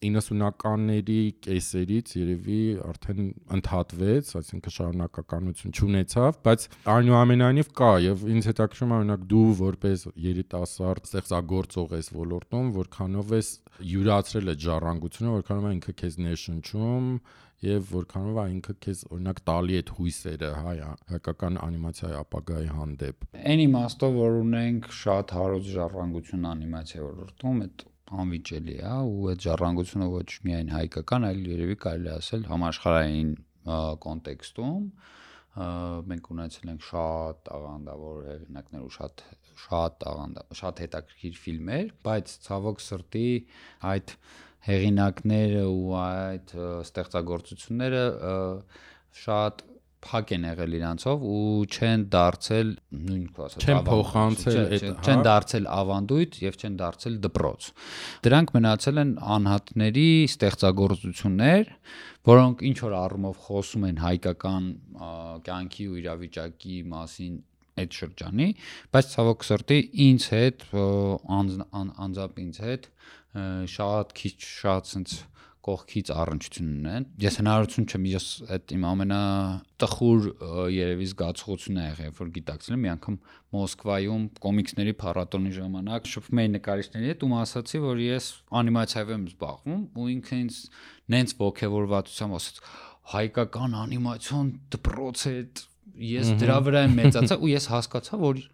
90-ականների կեսերից երևի արդեն ընդհատվեց, այսինքն շարունակականություն չունեցավ, բայց այնուամենայնիվ կա եւ ինձ հետաքրքրում է օրինակ դու որպես երիտասարդ ստեղծագործող ես ոլորտում, որքանով ես յուրացրել այդ ժառանգությունը, որքանով է ինքը քեզ ներշնչում եւ որքանով է ինքը քեզ օրինակ տալի այդ հույսերը հայկական անիմացիայի ապագայի հանդեպ։ Այն իմաստով, որ ունենք շատ հարուստ ժառանգություն անիմացիայի ոլորտում, այդ անվիճելի է ու այդ ժառանգությունը ոչ միայն հայկական, այլ երևի կարելի ասել համաշխարհային կոնտեքստում մենք ունեցել ենք շատ աղանդավոր հեղինակներ ու շատ հետաքրքիր ֆիլմեր, բայց ցավոք սրտի այդ հեղինակները ու այդ ստեղծագործությունները շատ փակ են եղել իրանցով ու չեն դարձել չեն դարձել ավանդույթ եւ չեն դարձել դպրոց։ Դրանք մնացել են անհատների ստեղծագործություններ, որոնք ինչ որ առումով խոսում են հայկական կյանքի ու իրավիճակի մասին այդ շրջանի, բայց ցավոք սրտի ինձ հետ անձամբ ինձ հետ շատ քիչ sense կողքից առնչություն ունեն։ Ես հնարավորություն չեմ, ես այդ իմ ամենատխուր երևի զգացողությունն է եղել, որ գիտակցել եմ մի անգամ Մոսկվայում կոմիքսների փառատոնի ժամանակ շփվում էի նկարիչների հետ ու ասացի, որ ես անիմացիայով եմ զբաղվում ու ինքը ինձ նենց ողջավորվածությամբ ասաց. հայկական անիմացիոն դպրոց է, ես դրա վրա եմ մեծացա ու ես հասկացա, որ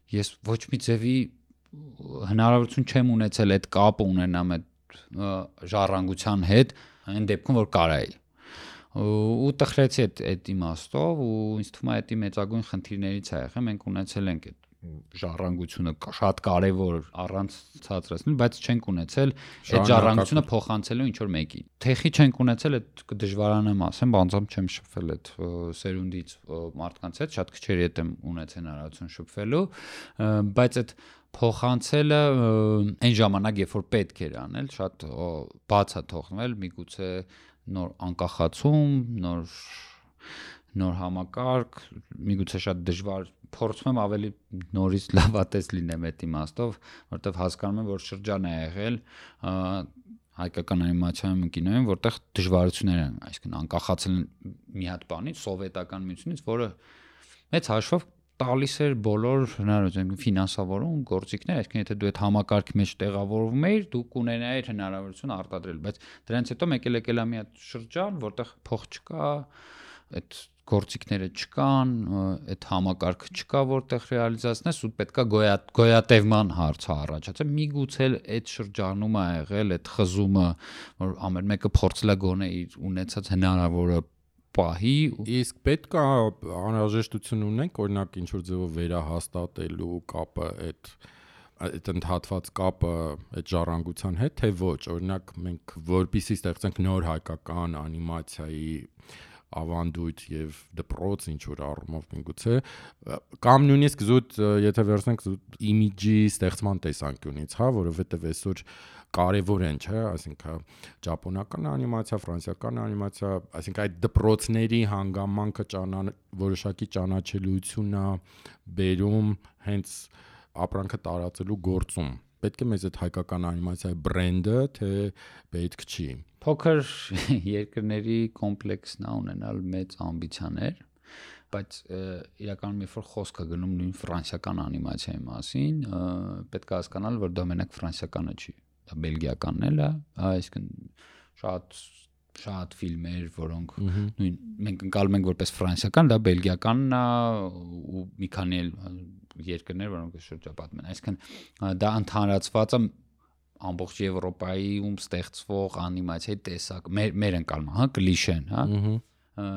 ես ոչ մի ձևի հնարավորություն չեմ ունեցել այդ կապը ունենամ այդ ժառանգության հետ այն դեպքում որ կարայի ու տխրեցի այդ իմաստով ու ինձ թվում է դա մեծագույն խնդիրներից է եղել մենք ունեցել ենք այդ ժառանգությունը շատ կարևոր առանց ցածրացնել, բայց չենք ունեցել այդ ժառանգությունը փոխանցելու ինչ որ մեկին։ Թեխի չենք ունեցել, այդ դժվարանամ ասեմ, բանձամ չեմ շփվել այդ սերունդից մարդկանց հետ, շատ քչերի հետ եմ ունեցել հնարավորություն շփվելու, բայց այդ փոխանցելը այն ժամանակ, երբ որ պետք էր անել, շատ բաց է թողնել, միգուցե նոր անկախացում, նոր համակարգ, միգուցե շատ դժվար փորձում եմ ավելի նորից լավատես լինեմ այդ իմաստով, որովհետև հասկանում եմ, որ շրջան է եղել հայկական անիմացիայում կինոյում, որտեղ դժվարություններ են, այսինքն անկախացել մի հատ բանից, սովետական միությունից, որը մեծ հաշվով տալիս էր բոլոր հնարավորություն ֆինանսավորում, գործիքներ, այսինքն եթե դու այդ համակարգի մեջ տեղավորվում էիր, դու կունենայիր հնարավորություն արտադրել, բայց դրանից հետո մեկ էլ եկել է մի հատ շրջան, որտեղ փող չկա, այդ գործիքները չկան, այդ համակարգը չկա, որտեղ ռեալիզացնես ու պետքա գոյատևման հարցը առաջացել։ Միգուցե այդ շրջանում է եղել այդ խզումը, որ ամեն մեկը փորձել է գոնե իր ունեցած հնարավորը պահի։ Իսկ պետք է անհրաժեշտություն ունենք, օրինակ ինչ որ ձևով վերահաստատելու կապը այդ ընդհատված կապը այդ ժառանգության հետ, թե ոչ, օրինակ մենք որպեսզի ստեղծենք նոր հայկական անիմացիայի ավանդույթ եւ դպրոց ինչ որ առումով միգուցե կամ նույնիսկ զուտ եթե վերցնենք զուտ իմիջի ստեղծման տեսանկյունից, հա, որովհետեւ այսօր կարևոր են, չէ, այսինքն ճապոնական անիմացիա, ֆրանսիական անիմացիա, այսինքն այդ դպրոցների հանգամանքը որոշակի ճանաչելիությունն է բերում հենց ապրանքը տարածելու գործում։ Պետք է մեզ այդ հայկական անիմացիայի բրենդը, թե պետք չի։ Փոքր երկրների կոմպլեքսն է ունենալ մեծ ամբիցիաներ, բայց իրականում երբ որ խոսք է գնում նույն ֆրանսիական անիմացիայի մասին, պետք է հասկանալ, որ դա մենակ ֆրանսիականը չի, դա բելգիականն էլ է, այսինքն շատ ֆիլմեր, որոնք նույն մենք ընկալում ենք որպես ֆրանսիական, դա բելգիականն է ու մի քանի երկրներ, որոնք շրջապատում են, այսինքն դա ընդհանրացված է ամբողջ Եվրոպայում ստեղծվող անիմացիայի տեսակ, մեր ընկալումը, հա, կլիշեն, հա։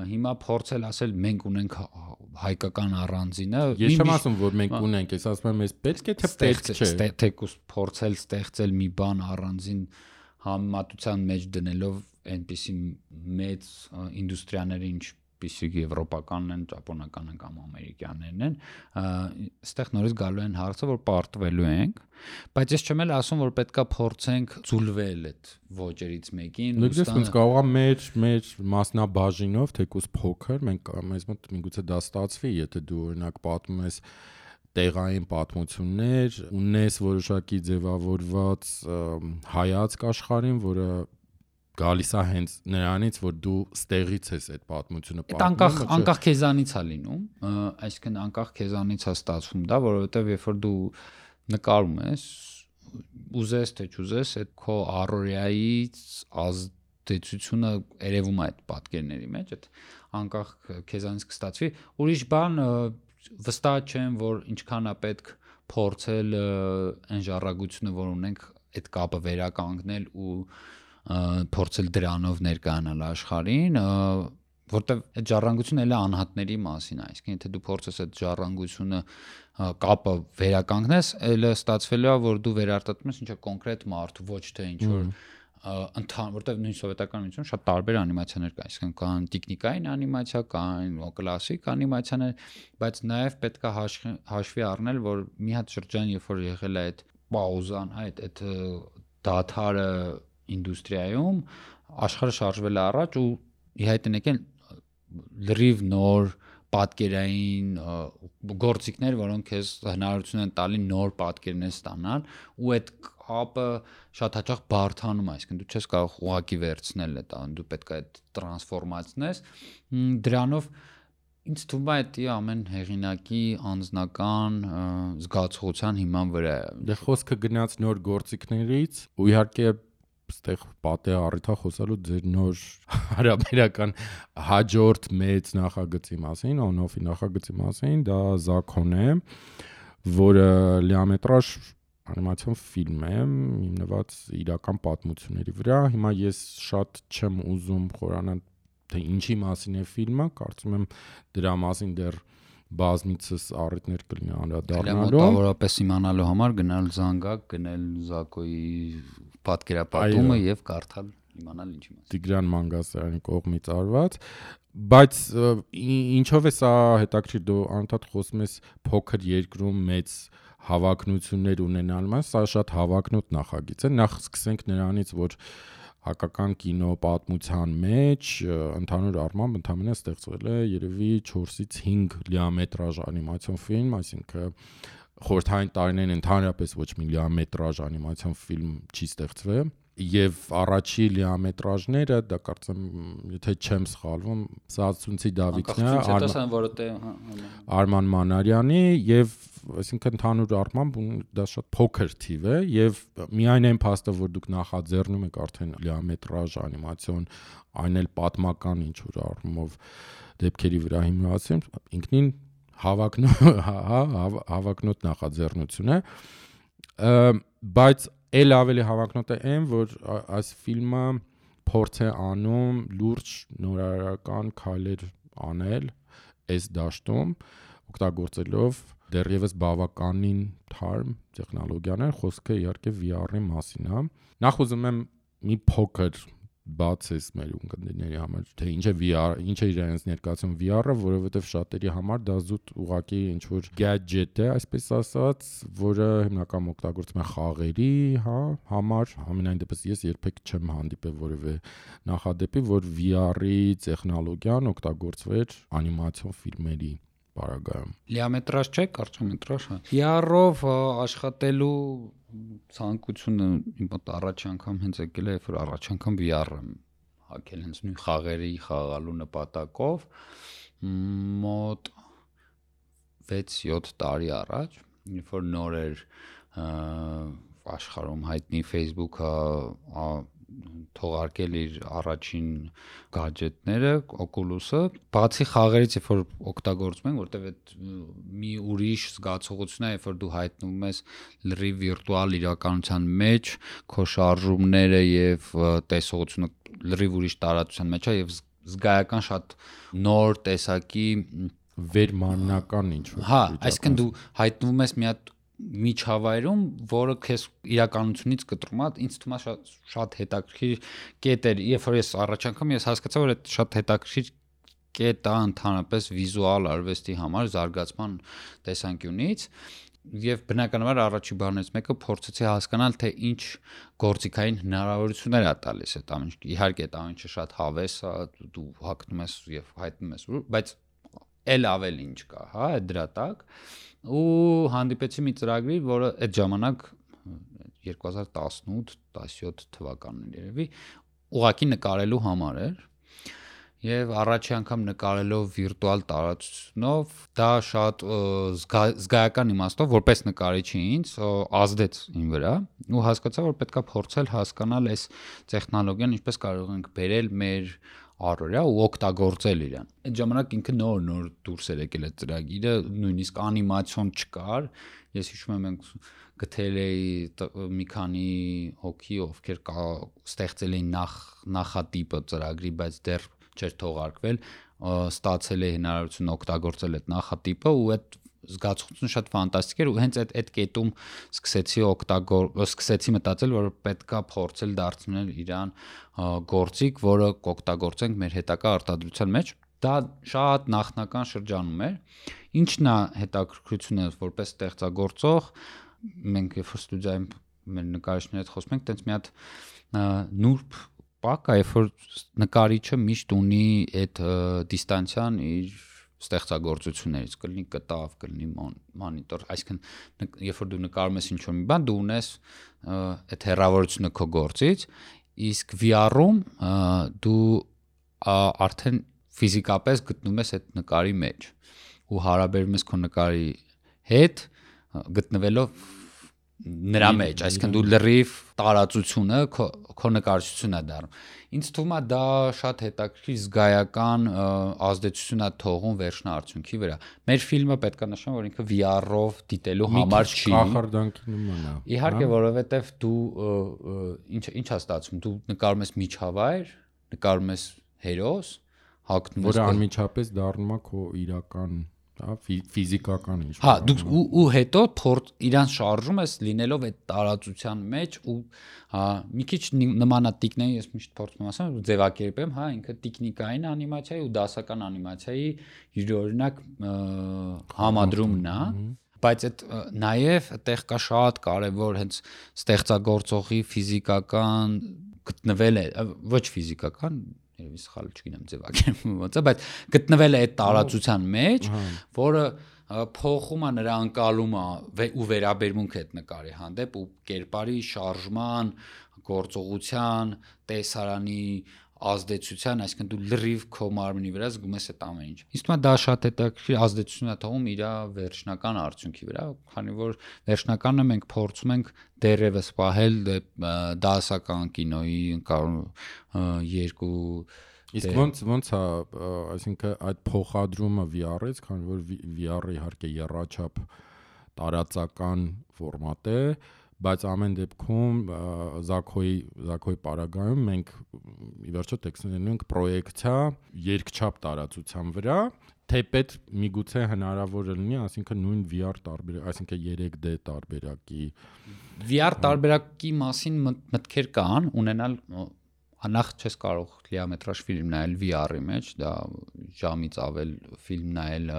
Հիմա փորձել ասել մենք ունենք հայկական առանձինը։ Ես չեմ ասում, որ մենք ունենք, ես ասում եմ, ես պետք է թե պետք չէ։ Թեկուզ փորձել ստեղծել մի բան առանձին համեմատության մեջ դնելով այնպիսի մեծ ինդուստրիաների, ինչպիսի եվրոպականն են, ճապոնականն են կամ ամերիկյաններն են, այստեղ նորից գալու են հարցը, որ պարտվելու ենք, բայց ես չեմ էլ ասում, որ պետքա փորձենք ձուլվել այդ ոճերից մեկին։ Լույս կարող է մեր մասնաբաժինով, թեկուզ փոքր, մեզ մոտ միգուցե դա ստացվի, եթե դու օրինակ պատմում ես տեղային պատմություններ, ունես որոշակի ձևավորված հայացք աշխարհին, որը գալիս է հենց նրանից, որ դու ստեղից ես այդ պատմությունը պատմում։ Անկախ քեզանից է լինում, այսինքն անկախ քեզանից է ստացվում դա, որովհետև երբ որ դու նկարում ես, ուզես թե չուզես, այդ քո առօրյայից ազդեցությունը երևում է այդ պատկերների մեջ, այդ անկախ քեզանից կստացվի։ Ուրիշ բան վստահ չեմ, որ ինչքան է պետք փորձել այն ժառանգությունը, որ ունենք, այդ կապը վերականգնել ու փորձել դրանով ներկայանալ աշխարհին, որտեվ այդ ժառանգությունը էլ է անհատների մասին, այսինքն եթե դու փորձես այդ ժառանգությունը կապը վերականգնես, էլ ստացվելու է, որ դու վերարտադրում ես ինչ-որ կոնկրետ մարդ, ոչ թե ինչ-որ որտեվ նույն սովետական միությունում շատ տարբեր անիմացիաներ կան, այսինքն կան տեխնիկային անիմացիա, կան կլասիկ անիմացիաներ, բայց նաև պետք է հաշվի առնել, որ մի հատ շրջան, երբ որ եղել է այդ պաուզան, այդ դադարը ինդուստրիայում, աշխարհը շարժվել է առաջ ու ի հայտ են եկել լրիվ նոր պատկերային գործիքներ, որոնք քեզ հնարավորություն են տալի նոր պատկերներ ստանալ ու այդ կապը շատ հաճախ բարդանում է, այսինքն դու չես կարող ուղակի վերցնել այդ, դու պետք է այդ տրանսֆորմացնես, դրանով ինձ թվում է դա ամեն հեղինակի անձնական զգացողության հիման վրա է։ Դե խոսքը գնաց նոր գործիքներից ու իհարկե ստեղ պատե առիթա խոսալու ձեր նոր հարաբերական հաջորդ մեծ նախագծի մասին, on-off-ի նախագծի մասին, դա Zakon է, որը լիամետրաժ անիմացիոն ֆիլմ է, հիմնված իրական պատմությունների վրա։ Հիմա ես շատ չեմ ուզում խորանալ, թե ինչի մասին է ֆիլմը, կարծում եմ դրա մասին դեռ բազմիցս առիթներ կլինի անդրադառնալու։ Մոտավորապես իմանալու համար գնալ զանգակ, գնել Զակոյի պատկերապատումը եւ կարդալ, իմանալ ինչի մասին։ Տիգրան Մանգասարյանի կողմից արված, բայց ինչով է սա հետաքրքիր, դու անընդհատ խոսում ես փոքր երկրում մեծ հավակնություններ ունենալու մասին, սա շատ հավակնոտ նախագիծ է։ Նախ սկսենք նրանից, որ հակական կինո պատմության մեջ ընդհանուր առմամբ ընդամենը ստեղծվել է երևի 4-ից 5 լիամետրաժ անիմացիոն ֆիլմ, այսինքն խորհրդային տարիներին ընդհանրապես ոչ մի լիամետրաժ անիմացիոն ֆիլմ չի ստեղծվել, եւ առաջի լիամետրաժները, դա կարծեմ, եթե չեմ սխալվում, Սացունցի Դավիթն է, Արման Մանարյանի եւ այսինքն ընդհանուր առմամբ դա շատ փոքր թիվ է եւ միայն այն փաստը, որ դուք նախաձեռնում եք արդեն լիամետրաժ անիմացիոն, այն էլ պատմական ինչ որ առումով դեպքերի վրա հիմնված, ինքնին հավակնոտ նախաձեռնություն է, բայց էլ ավելի հավակնոտ է այն, որ այս ֆիլմը փորձ է անում լուրջ նորարարական քայլեր անել այս դաշտում, օգտագործելով դեռևս բավականին թարմ տեխնոլոգիաներ, խոսքը իհարկե VR-ի մասին է։ Նախ ուզում եմ մի փոքր բացես մեր ունկնդիրների համար, թե ինչ է VR, ինչ է իրենց ներկայացում VR-ը, որովհետև շատերի համար դա զուտ ուղղակի ինչ որ gadget է, այսպես ասած, որը հիմնականում օգտագործվում է խաղերի, համար, համենայն դեպս ես երբեք չեմ հանդիպել որևէ նախադեպի, որ VR-ի տեխնոլոգիան օգտագործվեր անիմացիոն ֆիլմերի պարագայում։ Լիամետրաժ չէ, կարճամետրաժ, VR-ով աշխատելու ցանկությունը իմ մոտ առաջ անգամ հենց եկել է, երբ որ առաջ անգամ VR-ը հակել հենց նույն խաղերի խաղալու նպատակով մոտ 6-7 տարի առաջ, երբ որ նոր էր աշխարհում հայտնի Facebook-ը թողարկել իր առաջին գադջետները, Oculus-ը, բացի խաղերից, երբ որ օգտագործում ենք, որտեղ այդ մի ուրիշ զգացողություն է, երբ որ դու հայտնվում ես լրիվ վիրտուալ իրականության մեջ, քո շարժումները եւ տեսողությունը լրիվ ուրիշ տարածության մեջ է եւ զգայական շատ նոր տեսակի վերմանական ինչ-որ։ Հա, այսինքն դու հայտնվում ես մի հատ միջավայրում, որը քեզ իրականությունից կտրում է, ինձ թվում է շատ հետաքրքիր կետ էր, երբ որ ես առաջ անգամ հասկացա, որ այդ շատ հետաքրքիր կետ է ընդհանրապես վիզուալ արվեստի համար զարգացման տեսանկյունից եւ բնականաբար առաջի բաներից մեկը փորձեցի հասկանալ, թե ինչ գործիքային հնարավորություններ է տալիս այդ ամեն ինչը։ Իհարկե այդ ամեն ինչը շատ հավես է, դու հագնում ես եւ հայտնում ես, բայց էլ ավել ինչ կա, հա, դրա տակ ու հանդիպեցի մի ծրագրի, որը այդ ժամանակ 2018-17 թվականն երևի ուղղակի նկարելու համար էր եւ առաջի անգամ նկարելով վիրտուալ տարածությունով դա շատ զգայական իմաստով որպես նկարիչի ինձ ազդեց իմ վրա ու հասկացա, որ պետքա փորձել հասկանալ այս տեխնոլոգիան ինչպես կարող ենք բերել մեր առօրյա ու օգտագործել իրան։ Այդ ժամանակ ինքը նոր դուրս էր եկել այդ ծրագիրը, նույնիսկ անիմացիոն չկար։ Ես հիշում եմ մենք գտել էի մի քանի հոգի, ովքեր ստեղծել էին նախատիպը ծրագրի, բայց դեռ չէր թողարկվել, ստացել է հնարավորություն օգտագործել այդ նախատիպը ու այդ զգացողությունը շատ ֆանտաստիկ էր ու հենց այդ կետում սկսեցի մտածել, որ պետքա փորձել դարձնել իրան գործիք, որը կօգտագործենք մեր հետագա արտադրության մեջ։ Դա շատ նախնական շրջանում էր։ Ինչն է հետաքրքրությունը որպես ստեղծագործող, մենք երբ որ ստուդիայում մեր նկարիչների հետ խոսում ենք, տենց մի հատ նուրբ պակ է, երբ որ նկարիչը միշտ ունի այդ դիստանցիան իր ստեղծագործություններից, կլինի կտավ, կլինի մոնիտոր, այսինքն երբ որ դու նկարում ես ինչ-որ մի բան, դու ունես այդ հեռավորությունը քո գործից, իսկ VR-ում դու արդեն ֆիզիկապես գտնվում ես այդ նկարի մեջ ու հարաբերում ես քո նկարի հետ գտնվելով նրա մեջ, այսինքն դու լրիվ տարածությունը քո նկարչությունն է դառնում։ Ինձ թվում է դա շատ հետաքրքիր զգայական ազդեցություն է թողում վերջնարդյունքի վրա։ Մեր ֆիլմը պետք է նշեմ, որ ինքը VR-ով դիտելու համար չի։ Կախարդանքի նման է։ Իհարկե, որովհետև դու ինչ է ստացվում, դու նկարում ես միջավայր, նկարում ես հերոս, հագնում ես, որը անմիջապես դառնում է քո իրական հա, ֆիզիկական ինչ։ Հա, դուք ու հետո իրան շարժում ես լինելով այդ տարածության մեջ ու հա մի քիչ նմանատիկն է, ես միշտ փորձում եմ ասեմ, ձևակերպեմ, հա, ինքը տեխնիկային անիմացիայի ու դասական անիմացիայի յուրօրինակ համադրումն է, բայց այդ նաև այդտեղ կա շատ կարևոր հենց ստեղծագործողի ֆիզիկական գտնվել է, ոչ ֆիզիկական, երևի սխալ չգիտեմ ձևակերպում ոնց է, բայց գտնվել է այդ տարածության մեջ, որը փոխում է նրա անկալումը ու վերաբերմունքը այդ նկարի հանդեպ ու կերպարի շարժման, գործողության, տեսարանի ազդեցության, այսինքն դու լրիվ քո մարմնի վրա զգում ես այդ ամեն ինչ։ Իսկ դա շատ հետաքրքիր ազդեցություն է թողում իր վերջնական արդյունքի վրա, քանի որ վերջնականը մենք փորձում ենք դեռևս պահել դասական կինոյի երկու Իսկ ոնց է, այսինքն այդ փոխադրումը VR-ից, քանի որ VR-ը իհարկե եռաչափ տարածական ֆորմատ է, բայց ամեն դեպքում Զաքոյի պարագայում մենք ի վերջո տեքստներն ենք պրոյեկցիա երկչափ տարածության վրա, թեպետ միգուցե հնարավոր լինի, այսինքն նույն VR տարբերակ, այսինքն 3D տարբերակի VR տարբերակի մասին մտքեր կան, ունենալ նախ չես կարող լիամետրաժ ֆիլմ նայել VR-ի մեջ, դա ժամից ավել ֆիլմ նայել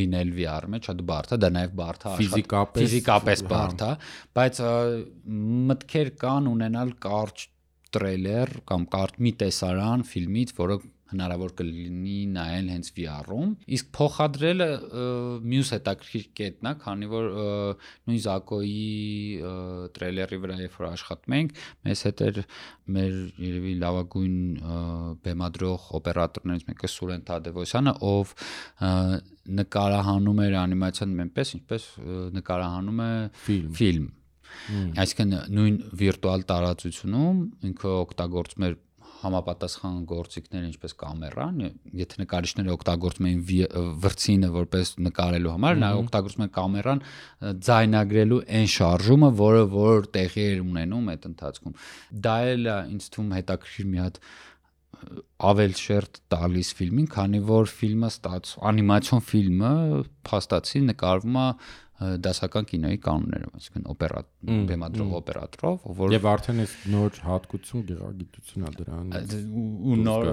լինել VR-ի մեջ, շատ բարդ է, դա նաև բարդ է ֆիզիկապես բարդ է, բայց մտքեր կան ունենալ կարճ տրեյլեր կամ կարճ մի տեսարան ֆիլմից, որը հնարավոր կլինի նայել հենց VR-ում, իսկ փոխադրելը մյուս հետաքրքիր կետն է, քանի որ նույն Զակոյի տրեյլերի վրա երբ որ աշխատում ենք, մեզ հետ էր մեր երևի լավագույն բեմադրող օպերատորներից մեկը Սուրեն Թադևոսյանը, ով նկարահանում էր անիմացիան այնպես, ինչպես նկարահանում է ֆիլմ։ Այսինքն նույն վիրտուալ տարածությունում ինքը օգտագործում էր համապատասխան գործիքներ ինչպես կամերան, եթե նկարիչները օգտագործում էին վրցինը որպես նկարելու համար, նա օգտագործում էր կամերան ձայնագրելու այն շարժումը, որ տեղի էր ունենում այդ ընթացքում։ Դա էլ է ինձ թվում հետաքրքիր մի հատ ավել շերտ տալիս ֆիլմին, քանի որ ֆիլմը անիմացիոն ֆիլմը փաստացի նկարվում է դասական կինոյի կանոններով, այսինքն բեմադրող օպերատորով, որ եւ արդեն այս նոր հատկություն գեղագիտություն է դրանից ու նոր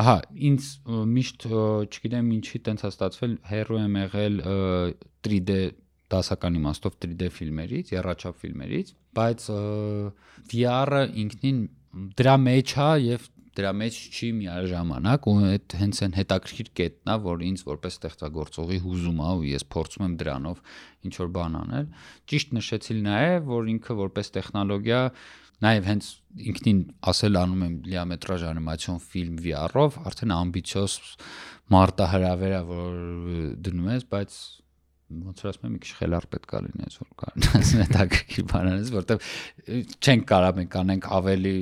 հա ինձ միշտ չգիտեմ ինչի տենց է ստացվել հերո եմ եղել 3D դասական իմաստով 3D ֆիլմերից, եռաչափ ֆիլմերից, բայց VR-ը ինքնին դրա մեջ է եւ դրա մեջ չի միաժամանակ ու այդ հենց այն հետաքրքիր կետն է, որ ինձ որպես ստեղծագործողի հուզում է ու ես փորձում եմ դրանով ինչ որ բան անել։ Ճիշտ նշեցի նաև, որ ինքը որպես տեխնոլոգիա նաև հենց ինքնին ասել անում եմ լիամետրաժ անիմացիոն ֆիլմ VR-ով, արդեն ամբիցիոզ մարտահրավեր է, որ դնում ես, բայց ոնց որ ասում եմ, մի քիչ խելառ պետք է լինես, որ կարողանաս հետաքրքիր բան անես, որտեվ չենք կարող մենք անենք ավելի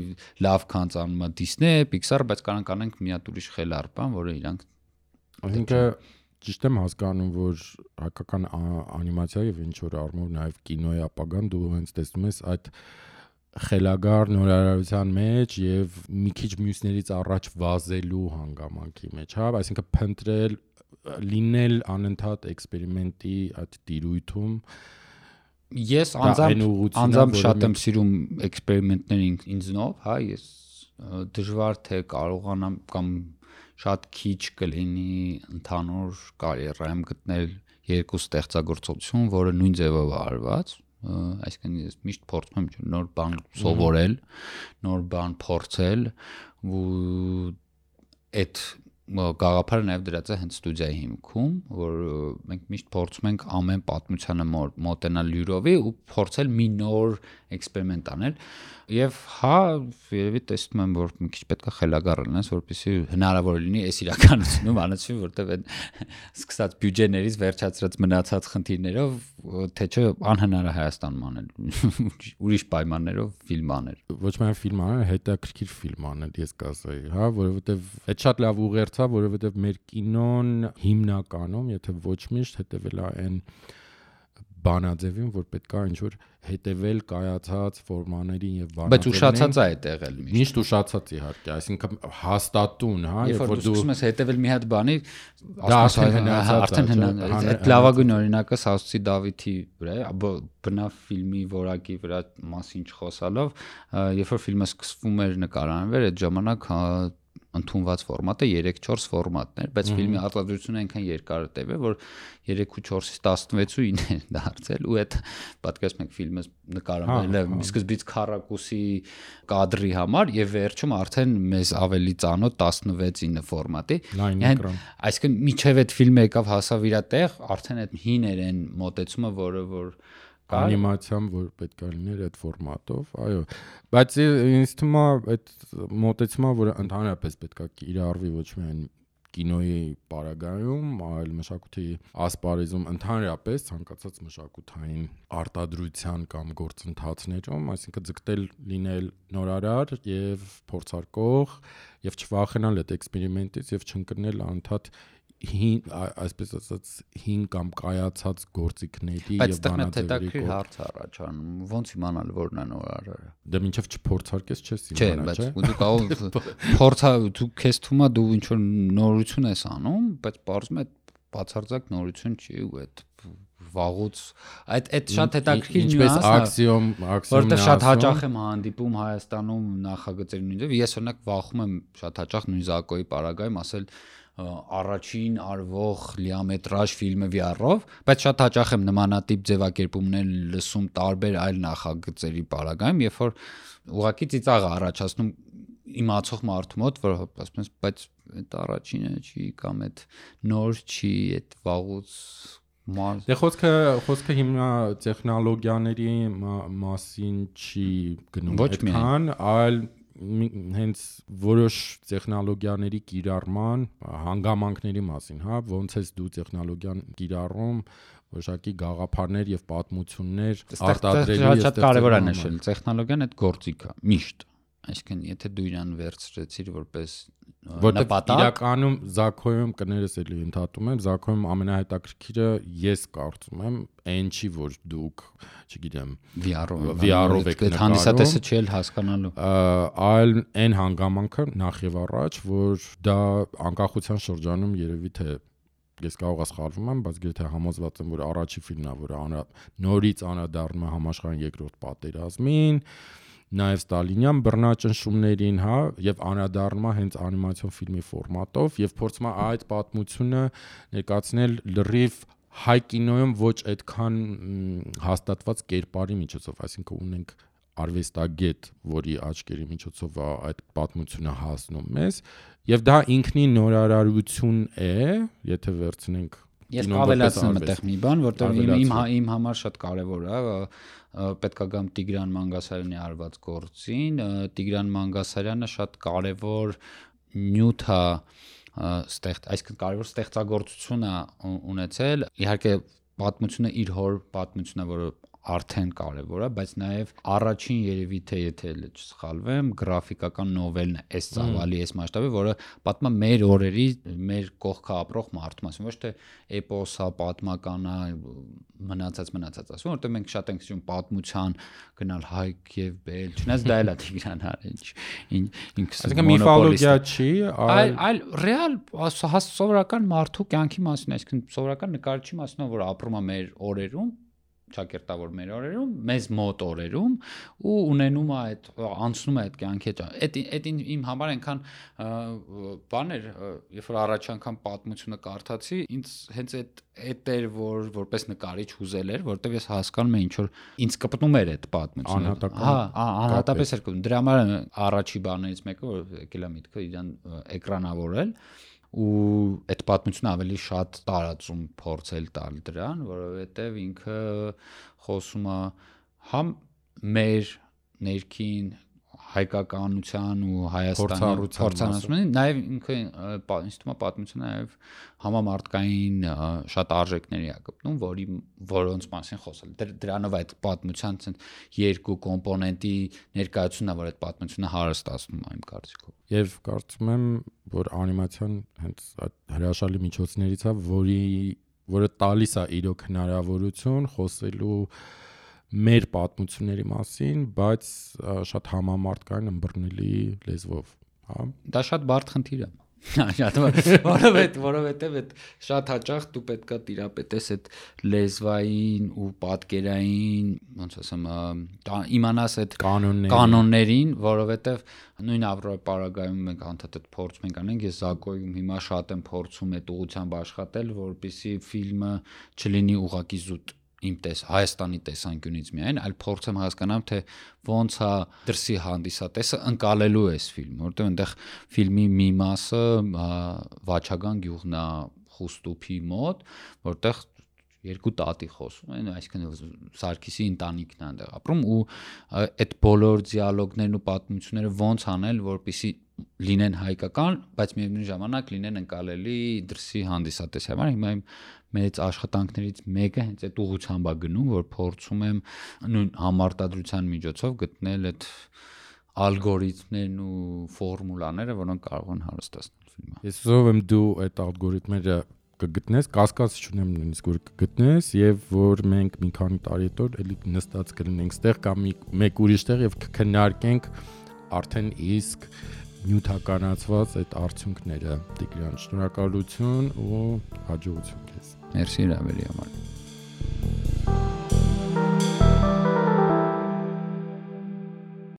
լավ քան անում է Disney, Pixar, բայց կարող անենք մի հատ ուրիշ խելառ բան, որը իրանք այսինքն ճիշտ եմ հասկանում, որ հայկական անիմացիա եւ ինչ որ առումով նաեւ կինոյի ապագան դու հենց տեսնում ես այդ խելագար նորարարության մեջ եւ մի քիչ մյուսներից առաջ վազելու հանգամանքի մեջ, հա, այսինքն փնտրել լինել անընդհատ էքսպերիմենտի այդ տիրույթում ես անձամբ շատ եմ սիրում էքսպերիմենտներ ինձնով, հա, ես դժվար թե կարողանամ կամ շատ քիչ կլինի ընդհանուր կարիերայում գտնել երկու ստեղծագործություն, որը նույն ձևով արված, այսինքն ես միշտ փորձում եմ նոր բան սովորել, նոր բան փորձել ու այդ գաղափարը նաև դրած է հենց ստուդիայի հիմքում, որ մենք միշտ փորձում ենք ամեն պատմությանը մոտենալ յուրովի ու փորձել մի նոր էքսպերիմենտ անել եւ հա երևի տեսնում եմ որ մի քիչ պետք է խելագար լինես որպեսզի հնարավոր լինի այս իրականությունում անցվի որտեվ այդ սկսած բյուջեներից վերջացրած մնացած խնդիրներով թե չէ անհնար է Հայաստանում անել ուրիշ պայմաններով ֆիլմ անել ոչ միայն ֆիլմ անել հետաքրքիր ֆիլմ անել ես կասեի հա որովհետեւ այդ շատ լավ ուղերձ է որովհետեւ մեր կինոն հիմնականում եթե ոչ միշտ հետեւել է այն բանաձևին, որ պետք է ինչ-որ հետևել կայացած ֆորմաներին եւ բանաձևերին։ Բայց ուշացած է այդ եղել միշտ ուշացած իհարկե, այսինքն հաստատուն, հա, երբ որ դու սկսում ես հետևել մի հատ բանի, արդեն այդ լավագույն օրինակը Սասուցի Դավիթի վրա է, բնավ ֆիլմի որակի վրա մասին չխոսալով, երբ որ ֆիլմը սկսվում էր նկարանվել, այդ ժամանակ ընդունված ֆորմատը 3-4 ֆորմատն էր, բայց ֆիլմի արտադրությունը այնքան երկար տևել, որ 3-4-ից 16-ին է դարձել ու այդ պատկերացնում եք ֆիլմը նկարվել է սկզբից քառակուսի կադրի համար եւ վերջում արդեն մեզ ավելի ծանոթ 16-9 ֆորմատի։ Այսինքն միջև այդ ֆիլմը եկավ հասավ իր տեղ, արդեն այդ հին էր այն մոտեցումը, որը անիմացիան, որ պետք է լիներ այդ ֆորմատով, այո, բայց ինձ թվում է այդ մոտեցումը, որ ընդհանրապես պետք է կիրառվի ոչ միայն կինոյի պարագայում, այլ մշակույթի ասպարեզում ընդհանրապես ցանկացած մշակութային արտադրության կամ գործընթացներում, այսինքն ձգտել լինել նորարար եւ փորձարկող եւ չվախենալ այդ էքսպերիմենտից եւ չընկնել անընդհատ այսպես ասած հին կամ կայացած գործիքների եւ բանաձևերի հարց առաջանում ոնց իմանալ որն է նորարարը դե մինչեւ չփորձարկես չես իմանա չէ բայց դու կարող դու քեզ թվում է դու ինչ որ նորություն ես անում բայց բարձում է բացարձակ նորություն չի ու այդ վաղուց այդ շատ հետաքրքիր նյուանս է աքսիոմ որտեղ շատ հաճախ եմ հանդիպում Հայաստանում նախագծերի նույնիսկ ես օրինակ վախում եմ շատ հաճախ նույն Զակոյի պարագայում ասել առաջին արվող լիամետրաժ ֆիլմը VR-ով, բայց շատ հաճախ եմ նմանատիպ ձևակերպումներ լսում տարբեր այլ նախագծերի պարագայում, երբ որ ուղղակի ծիծաղ առաջացնում իմացող մարդու մոտ, որ ասում ես, բայց այդ առաջինը չի կամ այդ նոր չի, այդ վաղուց Դե խոսքը հիմա տեխնոլոգիաների մասին չի գնում այդքան, այլ հենց որոշ տեխնոլոգիաների կիրառման հանգամանքների մասին, հա, ոնց ես դու տեխնոլոգիան կիրառում, որոշակի գաղափարներ եւ պատմություններ արտադրելու եւ շատ կարեւոր է նշել, տեխնոլոգիան այդ գործիք է, միշտ Այսինքն, եթե դու իրան վերցրեցիր որպես նպատակ, իրականում Զաքոյում կներես էլի ընդհատում եմ, Զաքոյում ամենահետաքրքիրը ես կարծում եմ, այն չի, որ դուք, չգիտեմ, VR-ով եք նկարում, հանդիսատեսը չի էլ հասկանալու, այլ այն հանգամանքը նախ եւ առաջ, որ դա անկախության շրջանում երևի թե ես կարող սխալվում եմ, բայց եթե համոզված եմ, որ առաջի ֆիլմն է, որը նորից անդրադառնում է համաշխարհային երկրորդ պատերազմին, նաև Ստալինյան բռնաճնշումներին, հա, եւ անդրադառնում է հենց անիմացիոն ֆիլմի ֆորմատով եւ փորձում է այդ պատմությունը ներկայացնել լրիվ հայ կինոյում ոչ այդքան հաստատված կերպարի միջոցով, այսինքն ունենք արվեստագետ, որի աչքերի միջոցով է այդ պատմությունը հասնում մեզ, եւ դա ինքնին նորարարություն է, եթե վերցնենք Ես ավելացնում եմ այդտեղ մի բան, որտեղ իմ համար շատ կարևոր է, պետք է գամ Տիգրան Մանգասարյանի արված գործին, Տիգրան Մանգասարյանը շատ կարևոր նյութ է այսինքն կարևոր ստեղծագործություն է ունեցել, իհարկե պատմությունը իր հոր պատմությունն է, որը արդեն կարևոր է, բայց նաև առաջին երևի թե եթե չսխալվեմ, գրաֆիկական նովելն է, այս ծավալի, այս մասշտաբի, որը պատմում է մեր օրերի, մեր կողքը ապրող մարդու մասին, ոչ թե էպոս է, պատմական է, մնացած ասում, որտեղ մենք շատ ենք սիրում պատմության գնալ Հայք եւ Բել, չնայած դա էլ է Տիգրան Այսինքն միֆոլոգիա չի, այլ ռեալ սովորական մարդու կյանքի մասին, այսինքն սովորական նկարչի մասին, որ ապրում է մեր օրերում ճակերտավոր մեր օրերում, մեզ մոտ օրերում ու ունենում է այդ անցնում է այդ կյանքի այդ իմ համար այնքան բան էր, երբ որ առաջ անգամ պատմությունը կարդացի, ինձ հենց այդ էր որպես նկարիչ հուզել էր, որտեղ ես հասկանում եմ ինչ որ ինձ կպտնում էր այդ պատմությունը։ Անհատապես էր կպտնում։ Դրա համար առաջի բաներից մեկը որ եկել է միտքը իրան էկրանավորել ու այդ պատմությունը ավելի շատ տարածում փորձել տալ դրան, որովհետև ինքը խոսում է համ մեր ներքին հայկականության ու Հայաստանի փորձառության, նաև ինքը ինձ թվում է պատմությունը նաև համամարտկային շատ արժեքների է գտնում, որոնց մասին խոսել։ Դրանով այդ պատմության երկու կոմպոնենտի ներկայությունն է, որ այդ պատմությունը հարստացնում է իմ կարծիքով։ Եվ կարծում եմ, որ անիմացիան հենց այդ հրաշալի միջոցներից է, որը տալիս է իրոք հնարավորություն խոսելու մեր պատմությունների մասին, բայց շատ համամարտկային ըմբռնելի լեզվով, հա։ Դա շատ բարդ խնդիր է։ Որովհետև այդ շատ հաճախ դու պետքա տիրապետես այդ լեզվային ու պատկերային, ոնց ասեմ, իմանաս այդ կանոններին, որովհետև նույն Ավրոպարագայում մենք անդադար փորձում ենք անենք, ես Զակոյում հիմա շատ եմ փորձում այդ ուղղությամբ աշխատել, որպեսզի ֆիլմը չլինի ուղղակի զուտ իմ Հայաստանի տեսանկյունից միայն, այլ փորձեմ հասկանամ, թե ոնց է դրսի հանդիսատեսը ընկալելու այս ֆիլմը, որտեղ այնտեղ ֆիլմի մի մասը Վաչագան գյուղն է Խուստուփի մոտ, որտեղ երկու տատի խոսում են, այսինքն Սարգիսի ընտանիքն է այնտեղ ապրում ու այդ բոլոր դիալոգներն ու պատմությունները ոնց անել, որպեսզի լինեն հայկական, բայց միևնույն ժամանակ լինեն ընկալելի դրսի հանդիսատեսի համար։ Հիմա իմ մեծ աշխատանքներից մեկը հենց այդ ուղղությամբ է գնում, որ փորձում եմ նույն համարտադրության միջոցով գտնել այդ ալգորիթմներն ու ֆորմուլաները, որոնք կարող են հարստացնել ֆիլմը։ Ես ուզում եմ դու այդ ալգորիթմերը կգտնես, կասկած չունեմ նույնիսկ որ կգտնես եւ որ մենք մի քանի տարի հետո էլի նստած կլինենք ստեղ կամ մեկ ուրիշ տեղ եւ կքննարկենք արդեն իսկ նյութականացված այդ արդյունքները։ Տիգրան, շնորհակալություն ու հաջողություն քեզ։ Մերսի հրավերի համար։